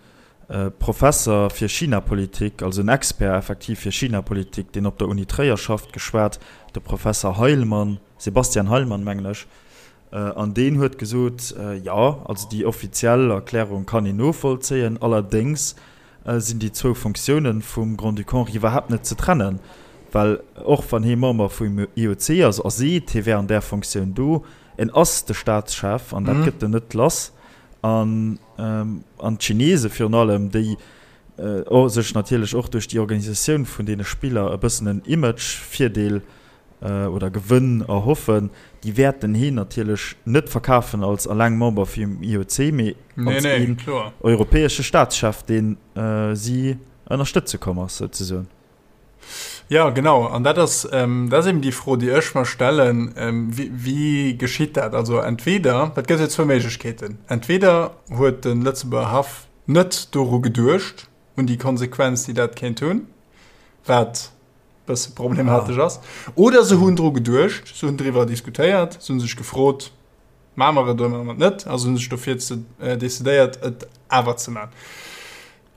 B: Professer fir Chinapolitik, also en Expert effektiv fir Chinapolitik, deen op der Uni Tréier schafft, geschwat, de Professer Heilmann, Sebastian Heilmann, mengen ech, an deen huet gesot, jo, also déi offiziell Erklärung kann een novollzéien, allerdéngs sinn déi zwou Fonctiounen vum Grand-Duc Henri iwwerhaapt net ze trennen, well och wann hee Member vum IOC ass a seet, hie wär an där Fonctioun do, en ass de Staatschef an dat gëtt en net lass. An d'Chinese virun allem, déi sech natierlech och duerch déi Organisatioun vun deene Spiller e bëssen en Image-Virdeel oder Gewënn erhoffen, déi wäerten heen natierlech net verkafen als alleng Member vum IOC, mee als een europäesche Staatschef, deen si ënnerstëtze komm ass, souzesoen.
A: Jo, genau. An dat ass, dat ass eben déi Fro, déi ech mer stellen, Wéi geschitt dat? Also entweder, et gëtt jo zwou Méiglechkeeten, entweder huet de Lëtzebuerger Haff net doru geduecht, un déi Konsequenz, déi dat kéint hunn, wat bësse problematesch ass. Oder se hunn dru geduecht, se hunn driwwer diskutéiert, se hunn sech gefrot, Maache mer et oder maache mer et net? A se hunn sech dofir ze decidéiert, et awer ze maachen.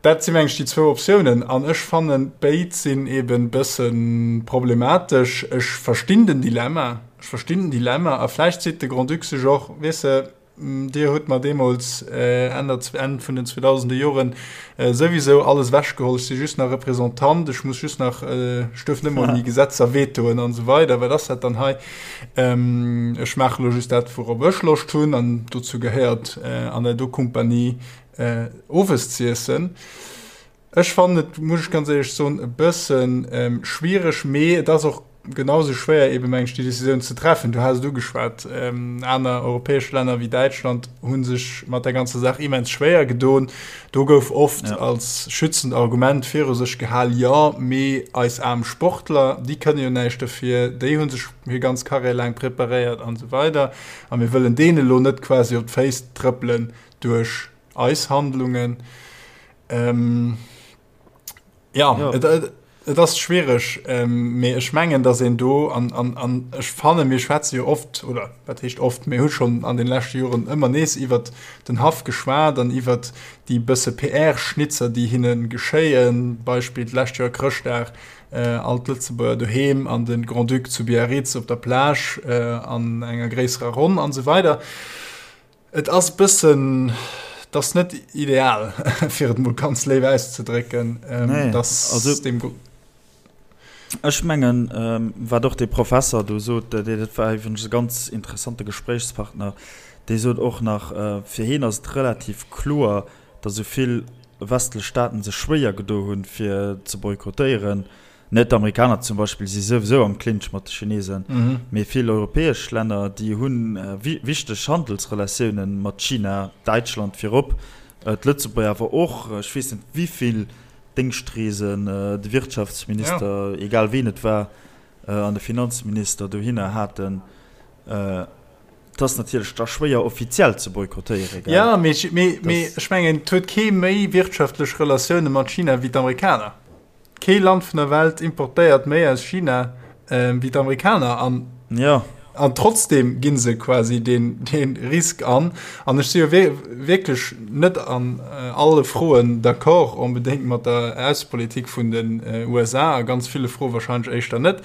A: Dat si meng ech déi zwou Optiounen. An ech fannen, béid sinn eeben bësse problematesch. Ech verstinn den Dilemma, ech verstinn den Dilemma. A vläicht seet de Grand-Duc sech och, Weess de, Dir hutt mer deemools Enn der, Enn vun den 2000er Joren souwisou alles ewechgeholl. Ech si just nach Représentant, ech muss just nach, ech duerf net mol méi Gesetzer vetoen an esou weider. Wat ass dat dann hei? Ech maache lo just dat, wourop ech Loscht hunn an dozou gehéiert, an der do Kompanie owes z'iessen. Ech fannen et, muss ech ganz éierlech soen, e bësse schwiereg, mee et ass och genau esou schwéier eebe meng ech déi Decisioun ze treffen. Du has et ugeschwat, aner europäesch Länner wéi Däitschland hu sech mat der ganzer Saach immens schwéier gedoen. Do gouf oft als schützend Argument viru sech gehal, jo, mee eis aarm Sportler, déi kënne jo näischt dofir, déi hu sech hir ganz Karriär laang preparéiert an esou weider a mir wëllen deene elo net quasi op d'Féiss trëppelen duerch eis Handlungen. Ähm, ja, ja. Et, et, Et ass schwiereg, mee ech mengen, datt een do, an, an, an ech fannen, mir schwätze jo oft, oder wat heescht oft, mir hu schonn an de leschte Joren ëmmer nees iwwert den Haff geschwat an iwwert déi bësse PR-Schnitzer, déi hinne geschéien, Beispill d'lescht Joer Chrëschtdag, all d'Lëtzebuerger doheem an de Grand-Duc zu Biarritz op der Plage an enger gréisserer Ronn an esou weider. Et ass e bëssen, et ass net ideal, fir et mol ganz léif auszedrécken,
B: dass deem. Ech mengen, wat och dee Professer do sot, dat war iwwregens e ganz interessante Gespréichspartner, dee sot och nach, fir hien ass et relativ kloer, datt esou vill westlech Staaten sech schwéier gedo hunn, fir ze boykottéieren. Net d'Amerikaner zum Beispill si souwisou am Clinch mat de Chinesen, mee vill europäesch Länner, déi hu wichteg Handelsrelatioune mat China, Däitschland virop, d'Lëtzebuerger awer och. Ech weess net, wéi vill Déngschtreesen de Wirtschaftsminister, egal ween et war, an de Finanzminister dohinner haten. Et ass natierlech da schwéier offiziell ze boykottéieren,
A: gell? Jo, mee ech mengen, et huet kee méi wirtschaftlech Relatioune mat China wéi d'Amerikaner. Kee Land vun der Welt importéiert méi aus China wéi d'Amerikaner an
B: ja.
A: An trotzdem ginn se quasi den, den Risk an. An ech si jo wierklech net an alle Froen d'accord onbedéngt mat der Aussepolitik vun den USA, a ganz ville Froe wahrscheinlech éischter net.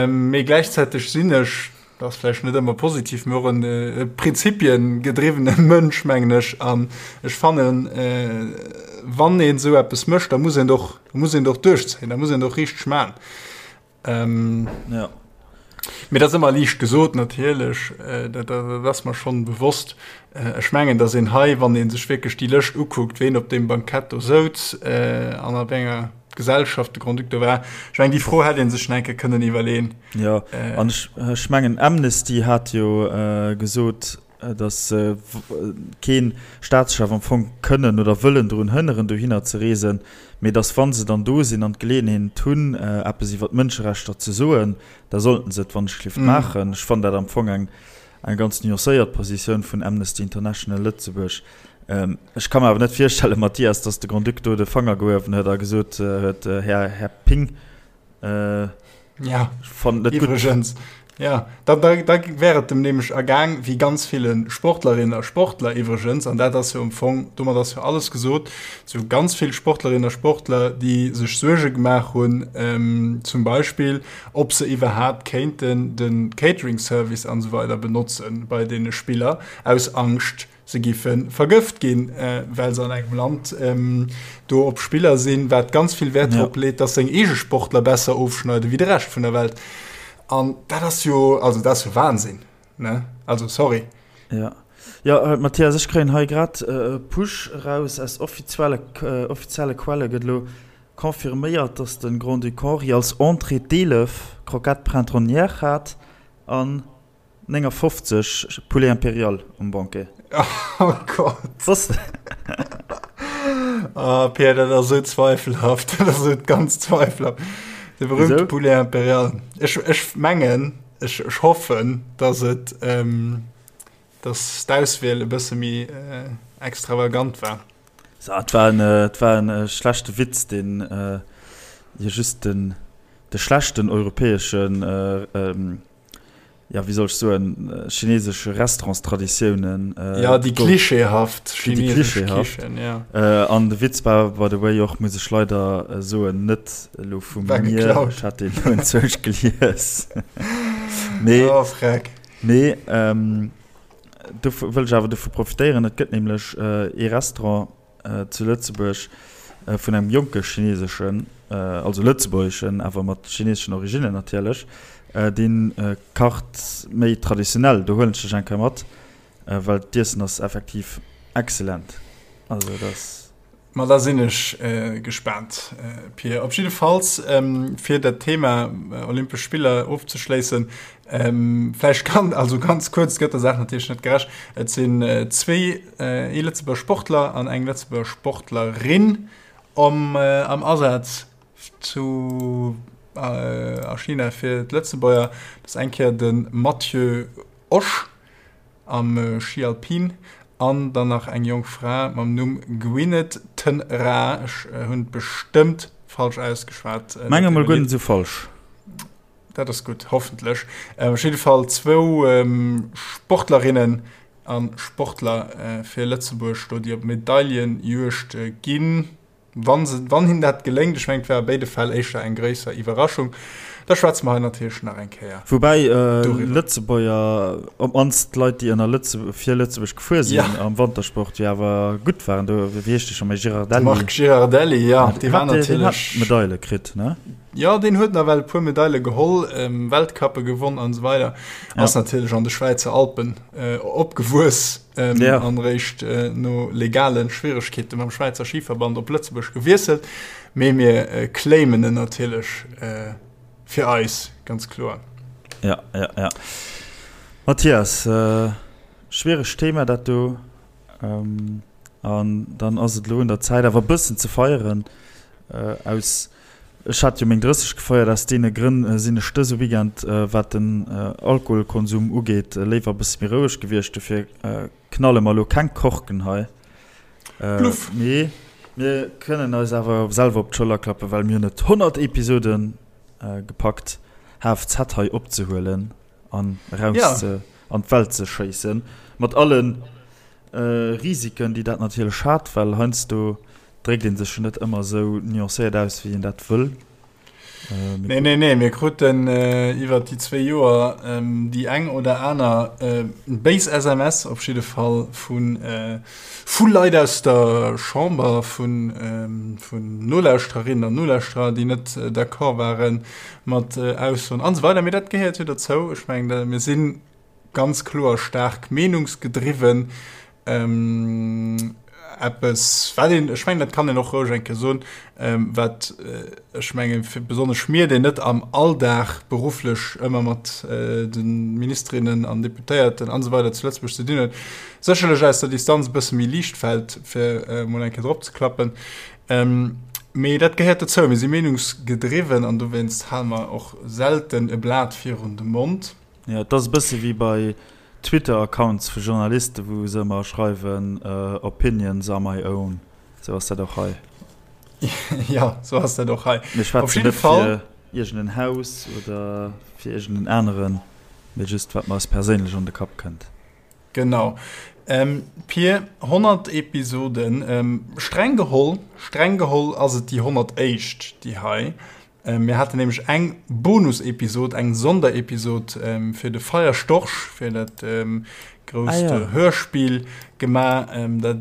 A: Mee gläichzäiteg sinn ech, Dat ass vläicht net ëmmer positiv, mee och en prinzipiengedriwwene Mënsch, mengen ech. An ech fannen, wann een esou eppes mécht, da muss een et och, da muss een et och duerchzéien, da muss een et och richteg maachen.
B: Jo.
A: Mee dat ass ëmmer liicht gesot natierlech, dat, dat ass mer schonn bewosst. Ech mengen, datt een hei, wann ee sech wierklech déi Lëscht ukuckt, ween op deem Bankett do souz an a wéi enger Gesellschaft de Grand-Duc do war, ech mengen, déi Fro hätt ee sech nach eng Kéier kënnen iwwerleeën.
B: Jo, an ech mengen, Amnesty hat jo gesot, datt se kee Staatschef am Fong kënnen oder wëllen drun hënneren, dohinner ze reesen, mee datt, wa se dann do sinn an d'Geleeënheet hunn, eppes iwwer d'Mënscherechter ze soen, da sollten se et wannechgelift maachen. Ech fannen dat am Fong eng ganz nuancéiert Positioun vun Amnesty International Lëtzebuerg. Ech ka mer awer net virstellen, Mathias, datt de Grand-Duc do de Fanger gehuewen huet a gesot huet, Här, Här Ping,
A: Ja, ech fannen et net gutt. Iwwregens, ja, da, da, da wär et dem nämlech ergaang wéi ganz ville Sportlerinnen a Sportler iwwregens, an dat ass jo am Fong, domat ass jo alles gesot, sou ganz vill Sportlerinnen a Sportler, déi sech Suerge gemaach hunn, zum Beispill, ob se iwwerhaapt kéinten de Catering-Service an esou weider benotzen bei deene Spiller, aus Angscht, Se giffe vergëft ginn, well se an engem Land do op Spiller sinn, wat ganz vill Wäert drop leet, dass seng eege Sportler besser ofschneiden wéi de Rescht vun der Welt. An dat ass jo, also dat ass jo Wahnsinn, ne? Also sorry.
B: Jo, jo, Mathias, ech kréien hei grad e Push eraus aus offizielle, offizielle Quelle gëtt elo confirméiert, dass de Grand-Duc Henri als Entrée d'Eelef Croquettes printanières hat an 59 Poulet Impérial um Banquet.
A: Oh Gott.
B: Was?
A: Ah, Pierre, dat ass esou zweifelhaft. Dat ass esou ganz zweifelhaft. De berühmte
B: Wieso?
A: Poulet Impérial. Ech, ech mengen, ech, ech hoffen, dass et, ähm, dass d'Auswiel e bësse méi äh, extravagant war.
B: So, et war en, äh, et war en äh, schlechte Witz, deen äh, jo just den, de schlechten europäeschen äh, ähm, ja, wéi soll ech soen, chinesesche Restaurantstraditiounen.
A: Ja, déi klischeehaft
B: chinesesch Kichen, ja. An de Witz war, by the way, och, muss ech leider soen, net elo vu mir. Ech hat deen elo enzwousch gelies. Mee,
A: oh, freck.
B: Mee, do wëll ech awer dovu profitéieren, et gëtt nämlech ee Restaurant, zu Lëtzebuerg vun engem jonke chineseschen, also lëtzebuergeschen, awer mat chineseschen Originnen natierlech, dee kacht méi traditionell. Do huelen ech dech eng Kéier mat, well d'Iessen ass effektiv excellent. Also dat ass.
A: Ma da sinn ech gespaant, Pir. Op jiddefalls, fir dat Thema Olympesch Spiller ofzeschléissen, vläicht kann, also ganz kuerz, et gëtt der Saach natierlech net gerecht, et sinn zwee Ee Lëtzebuerger Sportler an eng Lëtzebuerger Sportlerin am Asaz zu a China fir d'Lëtzebuerger. Dat ass eng Kéier de Matthieu Osch am Schi alpin an dann nach eng jonk Fra mam Numm Gwyneth Ten Raa. Ech hunn et bestëmmt. Falsch ausgeschwat.
B: Menge mol guer net esou falsch.
A: Dat ass gutt, hoffentlech. Op jidde Fall zwou Sportlerinnen a Sportler fir Lëtzebuerg do, déi op Medaillenjuegd ginn. Wann se, wann hinnen dat geléngt, ech mengen, et wär a béide Fäll éischter eng gréisser Iwwerraschung, da schwätze mer hei natierlech nach eng Kéier
B: Woubäi doriwwer. Lëtzebuerger, op d'mannst d'Leit, déi ënner Lëtze, fir Lëtzebuerg gefuer sinn ja. am Wantersport, jo awer gutt waren. Do, wéi heescht dee scho méi, Girardelli?
A: De Marc Girardelli, jo, dee war natierlech.
B: Deen hat Medaile kritt, ne?
A: Jo, deen huet nawell e puer Medaile geholl, Weltcuppe gewonn an esou weider. Ass natierlech an de Schwäizer Alpen opgewuess. ähm, ja. an réischt äh, no legalen Schwieregkeete mam Schwäizer Skiverband op Lëtzebuerg gewiesselt. Mee mir äh, claimen en natierlech äh, fir eis ganz kloer.
B: Ja, ja, ja. Matthias, äh, schwieregt Thema dat do. Ähm, an dann ass et lo un der Zäit awer bëssen ze feieren äh, aus Ech hat jo meng 30 gefeiert, aus deene Grënn sinn ech dëse Weekend, wat den Alkoholkonsum ugeet, léiwer e bësse méi roueg gewiescht. Dofir knalle mer elo keng Korken hei.
A: Bluff!
B: Mee mir kënnen eis awer selwer op d'Schëller klappen, well mir hunn et 100 Episode gepackt, HFZ hei opzehuelen an eraus an d'Welt ze schéissen, mat alle Risiken, déi dat natierlech hat, well heiansdo Dréckt een sech jo net ëmmer esou nuancéiert aus, wéi een dat wëll.
A: Nee, nee, nee, mir kruten iwwer déi zwéi Joer déi eng oder aner béis SMS op jidde Fall vu vu Leit aus der Chamber, vu vun Nolauschtererinnen an Nolauschterer, déi net d'accord ware mat Aussoen an esou weider. Mee dat gehéiert jo dozou. Ech mengen, mir si ganz kloer staark meenungsgedriwwen. Eppes, wat een, ech mengen, dat kann een och roueg eng Kéier soen, wat ech mengen, fir besonnesch mir, déi net am Alldag berufflech ëmmer mat de Ministerinnen an Deputéierten an esou weider zu Lëtzebuerg ze dinn hunn, sécherlech aus der Distanz e bësse méi liicht fält, fir emol eng Kéier drop ze klappen. Mee dat gehéiert dozou. Mir si meenungsgedriwwen an dowéinst hale mer och selten e Blat virun de Mond.
B: Jo, et ass e bësse wéi bei Twitter-Accounts vu Journalisten, wou se ëmmer schreiwen, Opinions are my own. Sou ass dat och hei.
A: Jo, sou ass dat och hei.
B: Mir schwätzen net fir iergend en Haus oder fir iergend en aneren, mee just wat mer eis perséinlech an de Kapp kënnt.
A: Genau. Pir, 100 Episoden, streng geholl, streng geholl ass et déi 101. déi hei. Mir haten nämlech eng Bonusepisod, eng Sonderepisod fir de Feierstorch, fir dat grousst ah, ja. Hörspiel gemaach.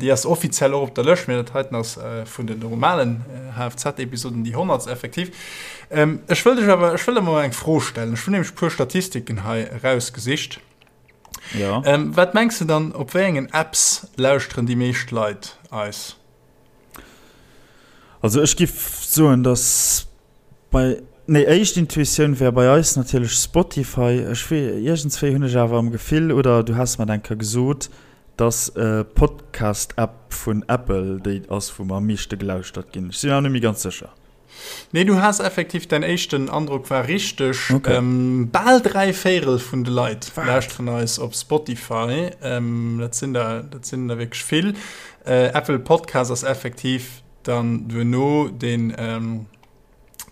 A: Déi ass offiziell och op der Lëscht, mee dat heiten ass vun den normalen HFZ-Episoden déi 100. Effektiv. Ech wëll dech awer, ech wëll der mol eng Fro stellen. Ech hunn nämlech e puer Statistiken hei erausgesicht.
B: Ja.
A: Wat mengs du dann, op wéi engen Apps lauschteren déi meescht Leit eis?
B: Also ech giff soen dass bei, nee éischt Intuitioun wär bei eis natierlech Spotify. Ech wee iergendswéi hunn ech awer am Gefill, oder du has mer et eng Kéier gesot, dass Podcast App vun Apple déi ass wou mer am meeschte gelauschtert ginn. Ech sinn awer net méi ganz sécher.
A: Nee, du has effektiv, däin éischten Androck war richteg. Okay. Bal 3 Véirel vun de Leit lauschteren eis op Spotify. Dat sinn der, dat sinn der wierklech vill. Apple Podcast ass effektiv dann duerno deen,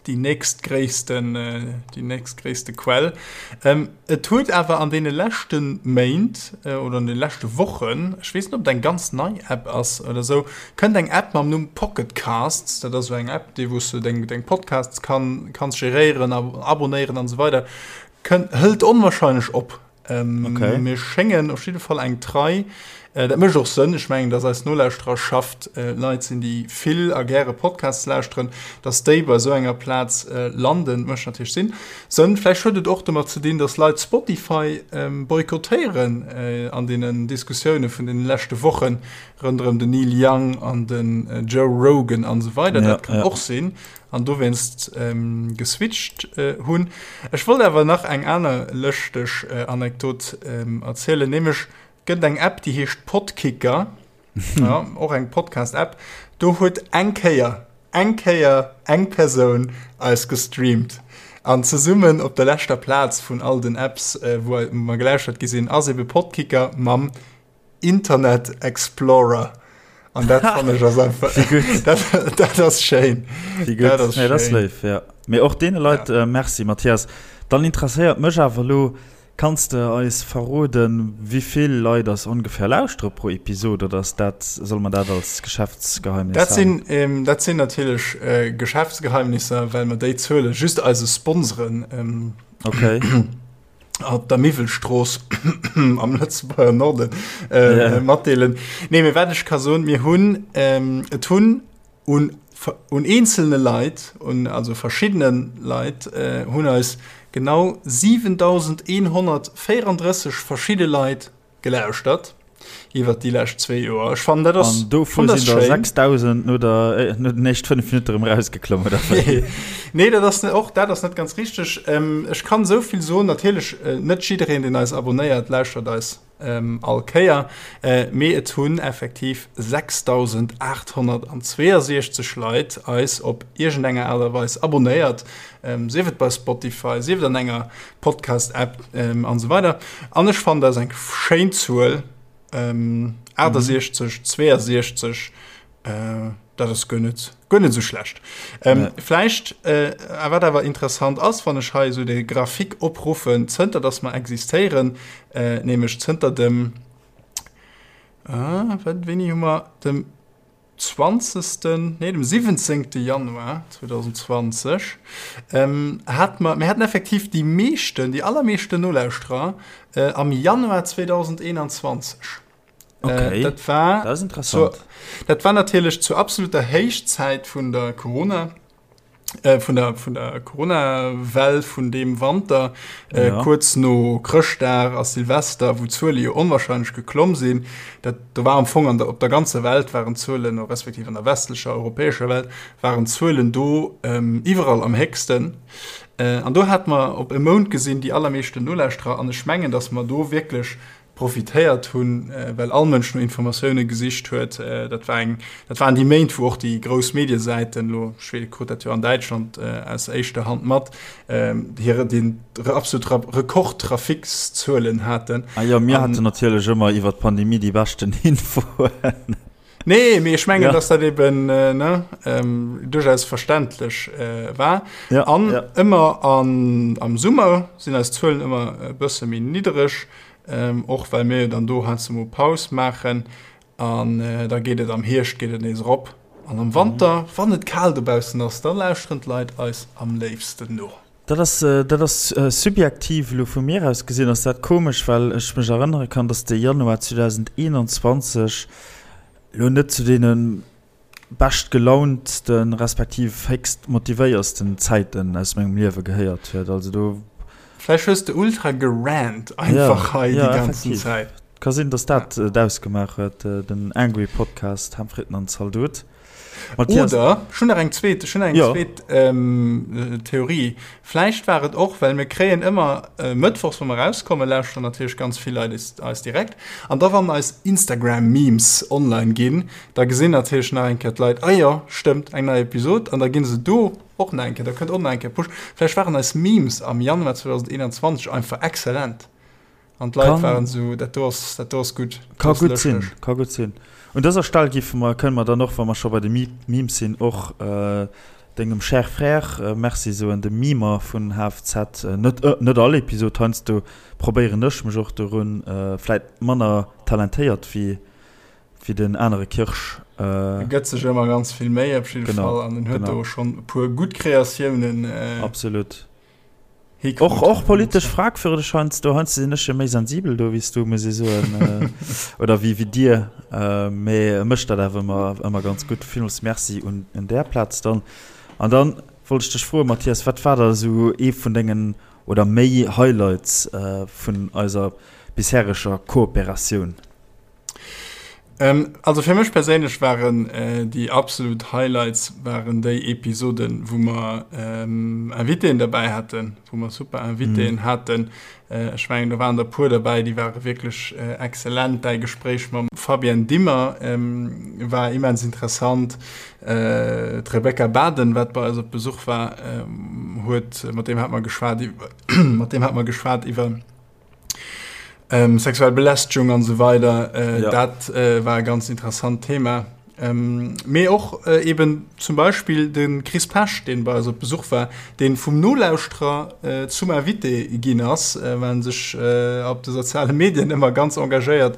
A: déi nächstgréissten, déi nächstgréisste Quell. Et huet awer an deene leschte Méint oder an de leschte Wochen, ech weess net, ob et eng ganz nei App ass oder esou, Kënnt eng App mam Numm Pocket Casts, dat ass esou eng App, déi wou s du deng deng Podcasts kann kanns geréieren a abonéieren an esou weider, kënnt hëlt onwahrscheinlech op.
B: Okay.
A: Mir schéngen op jidde Fall eng trei, dat mécht och Sënn, ech mengen, dass eis Nolauschtererschaft Leit sinn, déi vill a gäre Podcasts lauschteren, dass déi bei esou enger Plaz landen, mécht natierlech Sinn. Sënn. Vläicht huet et och domat ze dinn, dass Leit Spotify boykottéieren an deenen Diskussioune vun deene leschte Wochen, Ronderëm den Neil Young an den Joe Rogan an esou weider, dat kann och sinn, an dowéinst geswitcht hunn. Ech wollt awer nach eng aner lëschteg Anekdot erzielen, nämlech gëtt et eng App, déi heescht Podkicker, jo, och eng Podcast-App, do huet eng Kéier, eng Kéier eng Persoun eis gestreamt an zesummen op der leschter Plaz vun all den Apps, wou mer gelauschtert gi sinn, ass ebe Podkicker mam Internet Explorer. An dat fannen ech ass einfach, dat, dat ass schéin.
B: Wéi gutt. Dat ass, nee, dat ass léif, ja. Mee och deene Leit ja. äh, Merci, Mathias. Dann interesséiert mech awer elo, kanns de eis verroden, wéi vill Leit ass ongefähr lauschtere pro Episod oder ass dat, soll man dat als Geschäftsgeheimnis
A: dat sinn, ähm, dat sinn natierlech äh, Geschäftsgeheimnisser, well mer déi Zuele just eise Sponsoren ähm,
B: okay.
A: op der Miwwelstrooss am Lëtzebuerger Norden äh, yeah. matdeelen. Nee, mee wat ech ka soen, mir hunn ähm, et hunn un, un eenzelne Leit, un also verschiddene Leit äh, hunn eis genau 7134 verschidde Leit gelauschtert iwwer déi lescht zwee Joer. Ech fannen dat ass
B: An dovun sinn der 6000 no der no den éischt 5 Minutte erëm rausgeklomm oder
A: wéi? Nee, dat ass och dat ass net ganz richteg. Ähm, ech kann esou vill soen, natierlech äh, net jiddereen, deen eis abonnéiert, lauschtert eis ähm, all Kéier, äh, mee et hunn effektiv 6862 Leit eis op iergendenger Aart a Weis abonnéiert, ähm, sief et bei Spotify, sief et an enger Podcast-App ähm, an esou weider. An ech fannen, dat ass eng schéin Zuel, ähm, 68, 62, äh, dat ass guer net, guer net esou schlecht. Ähm, nee. Vläicht, äh, wat awer interessant ass, wann ech hei esou de Grafik opruffen, zënter dass mer existéieren, äh, nämlech zënter dem, äh, wat, wéini hu mer, dem zwanzegsten, nee, dem siwwenzéngte Januar 2020, ähm, hat mer, mir haten effektiv déi meeschten, déi allermeeschten Nolauschterer äh, am Januar 2021.
B: Okay.
A: Äh, dat war,
B: dat ass interessant.
A: Zur, dat war natierlech zur absoluter Héichzäit vun der Corona. Äh, vun der, vun der Corona-Well vun deem Wanter, äh, ja. kuerz no Chrëschtdag a Silvester, wou d'Zuele jo onwahrscheinlech geklomm sinn. Dat, do war am Fong an der, op der ganzer Welt waren d'Zuelen, respektiv an der westlecher europäescher Welt, waren d'Zuelen do ähm, iwwerall am héchsten. Äh, an do hat mer op e Mount gesinn déi allermeeschten Nolauschterer an ech mengen, datt mer do wierklech profitéiert hunn, well all Mënsch no Informatioune gesicht huet. Dat war eng, dat waren déi Méint, wou och déi grouss Mediesäiten, elo ech krut dat jo an Däitschland aus éischter Hand mat, hire den absolut Rekordtrafikszuelen haten.
B: Ah jo, mir haten natierlech ëmmer iwwer d'Pandemie déi beschten Infoen.
A: Nee, mee ech mengen, ja. dass dat eben äh, ne, ähm, duerchaus verständlech äh, war.
B: Ja,
A: an
B: ja.
A: ëmmer an, am Summer sinn eis Zuelen ëmmer e bësse méi niddereg, ähm, och well mir dann do heiansdo mol Paus maachen. An äh, da geet et am Hierscht geet et nees erop. An am Wanter, mhm. wann et kal dobaussen ass, da lauschteren d'Leit eis am léifsten no.
B: Dat ass, dat ass subjektiv elo vu mir aus gesinn ass dat komesch, well ech mech erënnere kann, datt de Januar 2021 elo net zu deene beschtgelauntsten, respektiv héchst motivéiersten Zäiten aus mengem Liewe gehéiert huet. Also do.
A: Vläicht hues de ultra gerant einfach hei déi ganzen Zäit.
B: Ka sinn, datt dat et ausgemaach huet, den Angry Podcast Ham, Fritten an Zaldot.
A: Matthias. Oder, ech hunn nach eng zweet, ech hunn nach eng
B: ja.
A: zweet ähm, Theorie. Vläicht war et och, well mir kréien ëmmer äh, mëttwochs, wa mer rauskommen, lauschteren natierlech ganz vill Leit eis, eis direkt. An da wann eis Instagram-Memes online ginn, da gesinn natierlech nach eng Kéier d'Leit, ah jo, stëmmt, eng nei Episod. An da ginn se do och nach eng Kéier, da kënnt och nach eng Kéier Push. Vläicht waren eis Memes am Januar 2021 einfach exzellent. An d'Leit waren esou, dat do ass, dat do ass gutt.
B: Ka gutt sinn, ka gutt sinn. Un dëser Stell géife mer, kënne mer dann och, wa mer scho bei de Memes sinn, och dengem cher Frère Merci soen, dem Memer vun HFZ. Net, net all Episod, heiansdo probéieren ech mech och dorun, vläit manner talentéiert wéi, wéi den anere Kirsch.
A: E gëtt sech ëmmer ganz vill Méi op jidde Fall an en huet do schonn e puer gutt Kreatiounen.
B: Absolut. Och, och politesch fragwürdeg heiansdo. Heiansdo sinn ech jo méi sensibel do wéi s du, muss ech soen. Oder wéi, wéi dir. Mee e mécht dat awer ëmmer, ëmmer ganz gutt. Villmools Merci un, un där Plaz dann. An dann wollt ech dech froen, Mathias, wat war da esou ee vun dengen oder méi Highlights vun eiser bishereger Kooperatioun?
A: Also fir mech perséinlech waren déi absolut Highlights waren déi Episoden, wou mer Invitéen derbäi haten, wou mer super Invitéen haten. Ech mengen, do waren der e puer derbäi, déi ware wierklech exzellent. Däi Gespréich mam Fabienne Dimmer war immens interessant. D'Rebecca Baden, wat bei eis op Besuch war, huet, mat deem hat mer geschwat iwwer, mat deem hat mer geschwat iwwer, Ähm, sexuell Belästegung an esou weider, äh, ja. dat äh, war e ganz interessant Thema. Mee och eben zum Beispill de Chris Pesch, deen bei eis op Besuch war, deen vum Nolauschterer zum Invité ginn ass, well en sech op de soziale Medien ëmmer ganz engagéiert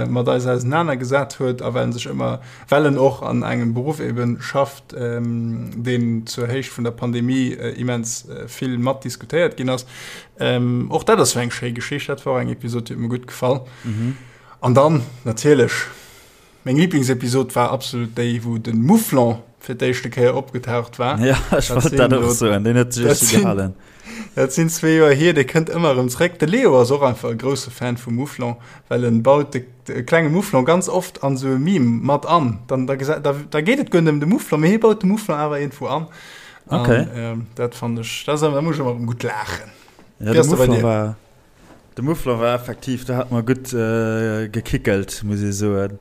A: mat eis ausenanergesat huet a well en sech ëmmer, well en och an engem Beruff eben schafft, deen zur Héicht vun der Pandemie immens vill mat diskutéiert ginn ass. Och dat ass jo eng schéi Geschicht. Dat war och eng Episod, déi huet mir gutt gefall. An dann natierlech Meng Lieblingsepisod war absolut déi wou den Mouflon fir d'éischte Kéier opgetaucht war.
B: Ja, ech wollt dat och soen, deen huet sech richtig gehalen.
A: Dat sinn zwee Joer hier, dee kënnt ëmmer erëm zréck. De Leo ass och einfach e grousse Fan vum Mouflon, well en baut de, de klenge Mouflon ganz oft an esou e Meme mat an. Dann, da, da, da geet et guer net ëm de Mouflon, mee hie baut de Mouflon awer iergendwou an. An,
B: okay.
A: ähm, dat fand ech, dat ass, da muss ech ëmmer erëm gutt laachen.
B: Ja, de Mouflon war. De Muffler war effektiv, do hat mer gutt gekickelt, muss ee soen.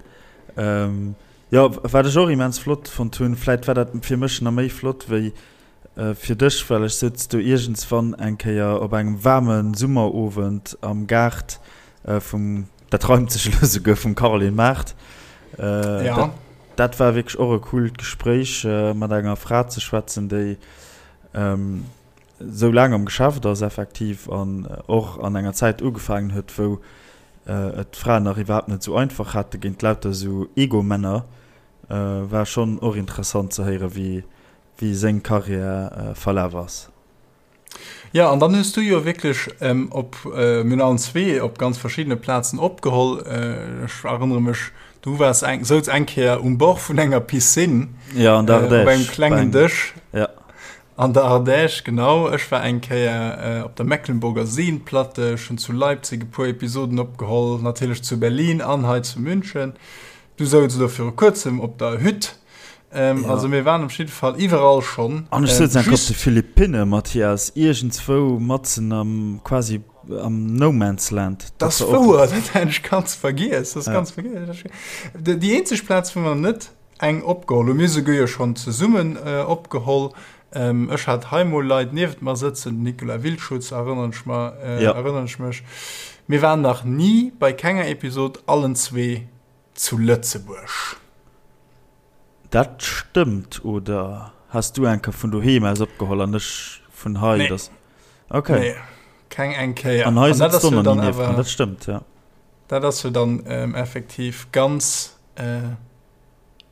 B: Jo, wat ech och immens flott fonnt hunn, vläit war dat fir mech nach méi flott wéi fir dech, well ech souz do iergendswann eng Kéier op engem waarme Summerowend am Gaart vum, dat reimt sech elo souguer, vum Caroline Mart.
A: Ja.
B: Dat war wierklech och e coolt Gespréich, mat enger Fra ze schwätzen, déi sou laang am Geschäft ass effektiv an och an enger Zäit ugefaangen huet, wou et d'Fraen nach iwwerhaapt net sou einfach hate géint lauter sou Ego-Männer, war schonn och interessant ze héieren, wéi wéi seng Karriär verlaf ass.
A: Jo, an dann hues du jo wierklech op, mir hunn allen zwee op ganz verschiddene Plazen opgeholl. Ech erënnere mech, du waars eng, souz eng Kéier um Bord vun enger Piscine,
B: Ja, an der
A: op engem
B: Ardèche,
A: klengen Dësch.
B: Ja.
A: An der Ardèche, genau. Ech war eng Kéier op der Mecklenburger Seenplatte, ech hunn zu Leipzig e puer Episoden opgeholl, natierlech zu Berlin an hei zu München. Du souz elo viru kuerzem op der Hütt. Also mir waren op jidde Fall iwwerall schonn.
B: An ech souz enk op de Philippinne, Mathias, iergendswou matzen am, quasi am No Man's Land.
A: Dat ass wouer, dat hat ech ganz vergiess. Dat ass ganz vergiess. Déi eenzeg Plaz, wou mer net Eng opgeholl hu mir souguer jo schonn zesummen opgeholl. Ech hat hei mol Leit niewent mer sëtzen, den Nicolas Wildschutz erënneren ech mer, erënneren ech mech. Mir waren nach ni bei kenger Episod allen zwee zu Lëtzebuerg.
B: Dat stëmmt, oder has du eng Kéier vun doheem aus opgeholl an ech vun hei?
A: Nee.
B: Okay.
A: Nee, keng eng Kéier.
B: An hei sëtzt du nach ni nieft mer, dat stëmmt, jo.
A: Dat ass jo dann effektiv ganz.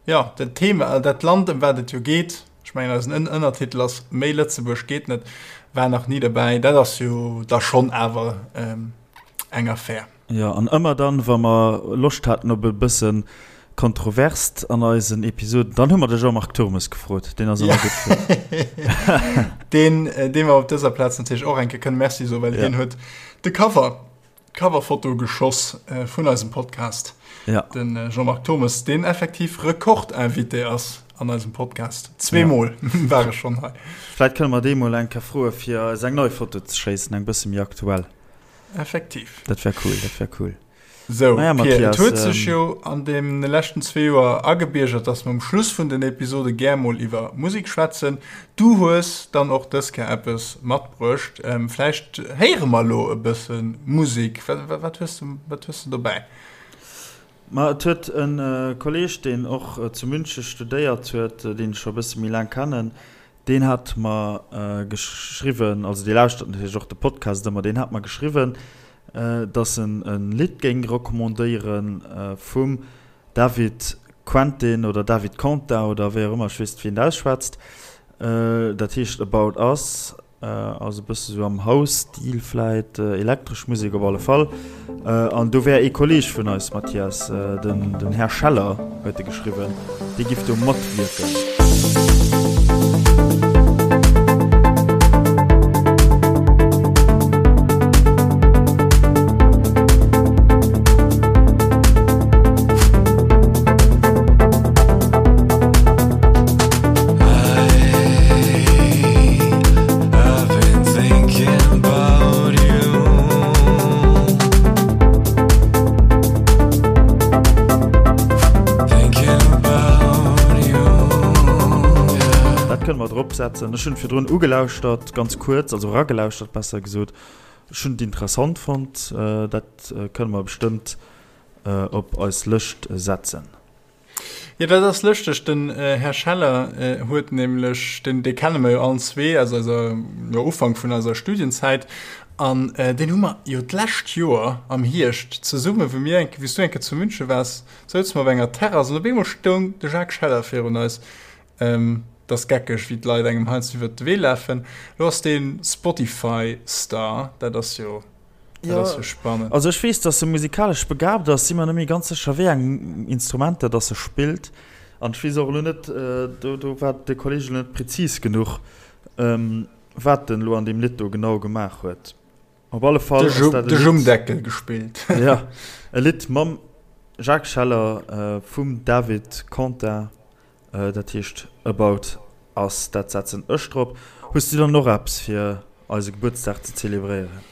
A: Jo, dat Thema, dat Land, ëm wat et jo geet, ech mengen eisen Ënnertitel ass Méi Lëtzebuerg geet net, war nach ni derbäi. Dat ass jo da schonn awer eng Affär.
B: Jo, an ëmmer dann, wa mer Loscht haten op e bësse Kontroverst an eisen Episoden, dann hu mer de Jean-Marc Turmes gefrot. Deen ass ëmmer gutt
A: fir. Deen, deem mer op dëser Plaz natierlech och eng Kéier kënne Merci soen, well hien huet de Cover D'Coverfoto geschoss vun eisem Podcast.
B: Ja.
A: Den Jean-Marc Thommes, deen effektiv Rekordinvité ass an eisem Podcast. Zweemol ja. war e schonn hei.
B: Vläit kënne mer dee mol eng Kéier froe fir eis eng nei Foto ze schéissen, eng bësse méi aktuell.
A: Effektiv.
B: Dat wär cool, dat wär cool.
A: Sou, naja, Matthias, et huet sech jo an deene leschten zwee Joer agebiergert, dass mer um Schluss vun den Episode gär mol iwwer Musek schwätzen. Du hues dann och dës Kéier eppes matbruecht. Vläicht héiere mer elo e bësse Musek. Wat hues du, wat hues du dobäi?
B: Ma et huet e Kolleeg, deen och zu Münche studéiert huet, deen ech scho e bësse méi laang kennen, Deen hat mer geschriwwen, also dee lauschtert natierlech och de Podcast ëmmer, deen hat mer geschriwwen, dass en e Lidd géing recommandéiere vum David Quentin oder David Quentin oder wéi och ëmmer, ech weess net wéi een dat ausschwätzt. Dat heescht About Us. Ass e bësse sou am House-Stil vläit, elektresch Musek op alle Fall. An do wär ee Kolleeg vun eis, Mathias, den den Här Scheller huet e geschriwwen, dee giff do matwierken. Dat kënne mer drop setzen. Ech hunn virdrun ugelauschtert, ganz kuerz, also eragelauschtert besser gesot. Ech hunn et interessant fonnt. Dat kënne mer bestëmmt op eis Lëscht setzen.
A: Jo, dat ass lëschteg, den Här Scheller huet nämlech, deen, dee kenne mer jo allen zwee aus eiser, jo, Ufank vun eiser Studienzäit, an deen hu mer jo d'lescht Joer am Hierscht zesumme, wou mir eng, wou s du eng Kéier zu München waars, souze mer op enger Terrass an op eemol stoung de Jacques Scheller virun eis. Et ass geckeg, wéi d'Leit engem heiansdo iwwert de Wee lafen. Lo ass dee Spotify-Star, dat ass jo.
B: Dat ass jo spannend. Also ech weess, dass e musikalesch begabt ass, si mer net méi ganz sécher, wéi eng Instrumenter dass e spillt. An ech weess och elo net, do do war de Kolleg elo net prezis genuch, wat en elo an deem Lidd do genau gemaach huet. Op alle Fall
A: ass dat e Lidd. De Jummdeckel gespillt.
B: Jo, e Lidd mam Jacques Scheller vum David Contin. Dat heescht About Us, dat setzen ech drop. Hues du dann och eppes fir eise Gebuertsdag ze zelebréieren?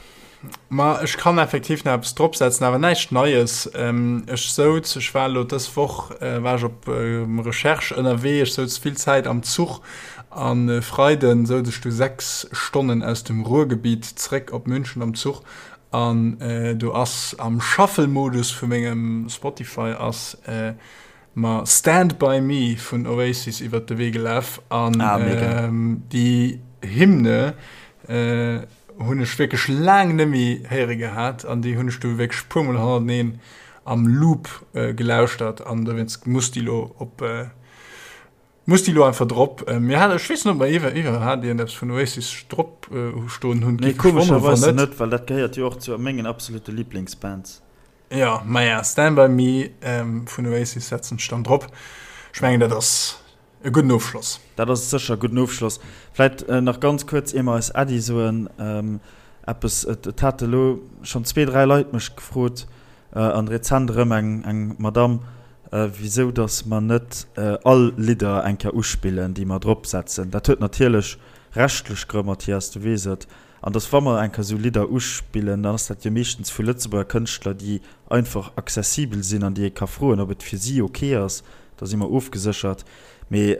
A: Ma ech kann effektiv nach eppes dropsetzen, awer näischt Neies. Ech souz, ech war elo dës Woch war ech op Recherche ënnerwee, ech souz vill Zäit am Zuch an e Freiden souz ech du 6 Stonnen aus dem Ruhrgebiet zréck op München am Zuch an do ass am Shuffle-Modus vu mengem Spotify ass mer Stand By Me vun Oasis iwwert de Wee gelaf an déi Hymne hunn ech wierklech laang net méi héiere gehat an déi hunn ech du wierklech puer mol hannerteneen am Loop gelauschtert an dowéinst muss déi lo op muss déi lo einfach drop. Mir hat ech weess net ob mer iwwer iwwerhat iergendeppes vun Oasis drop stoen hunn.
B: Nee, komescherweis net, well dat gehéiert jo och zu mengen absolute Liblingsbands.
A: Jo, maja, Stand By Me vun Oasis setzen ech dann drop. Ech mengen, dat ass e gudden Ofschloss.
B: Dat ass sécher e gudden Ofschloss. Vläit nach ganz kuerz, ier mer eis Äddi soen, eppes, Et hate elo schonn zwee, dräi Leit mech gefrot, an rezent erëm eng Madamm, wisou datt mer net all Lidder eng Kéier uspillen, déi mer dropsetzen. Dat huet natierlech rechtlech Grënn, Mathias, du weess et. An dass wa mer eng Kéier esou Lidder uspillen, dann ass dat jo meeschtens vu Lëtzebuerger Kënschtler, déi einfach accessibel sinn an déi ee ka froen, ob et fir si ok ass. Da si mer ofgeséchert. Mee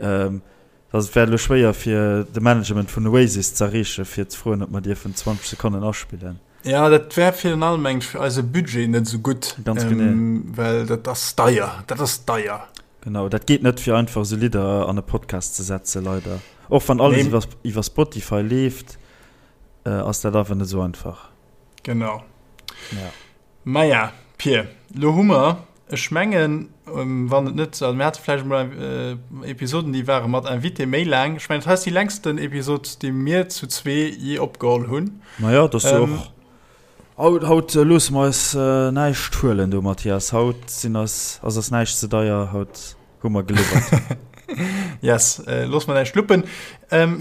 B: dass et wär elo schwéier fir de Management vun Oasis z'erreechen, fir ze froen, ob mer dierfen 20 Sekonnen aspillen.
A: Jo, dat wär virun allem mengen ech fir eise Budget net esou gutt.
B: Ganz genee.
A: Well dat ass deier, dat ass deier.
B: Genau, dat geet net fir einfach esou Lidder an e Podcast ze setzen, leider. Och wann alles iwwer iwwer Spotify leeft, ass dat awer net esou einfach.
A: Genau.
B: Ja.
A: Maja, Pir, lo hu mer, ech mengen, wann et net, also mir hate vläicht emol Episoden, déi ware mat Invité méi laang. Ech mengen, dat hei ass déi längsten Episod, déi mir zu zwee jee opgeholl hunn.
B: Maja, dat ass jo och Haut, haut loosse mer eis näischt huelen do, Mathias. Haut sinn eis, ass eis näischt ze deier. Haut hu mer geliwwert.
A: Yes, loosse mer näischt luppen.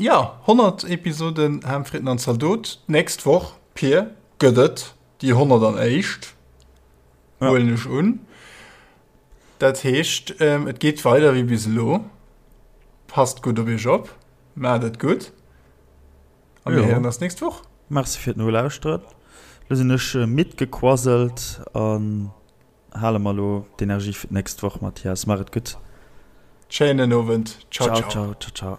A: Jo, 100 Episoden Ham, Fritten an Zaldot. D'nächst Woch, Pir, gëtt et déi 101. Huelen ech un. Dat heescht, et geet weider wéi bis elo. Passt gutt op iech op. Maacht et gutt. A mir héieren eis nächst Woch.
B: Merci fir d'Nolauschteren. Lo sinn ech midd gequasselt an hale mer lo d'Energie fir d'nächst Woch, Mathias. Maach et gutt.
A: Schéinen Owend.
B: Ciao, ciao. Ciao, ciao.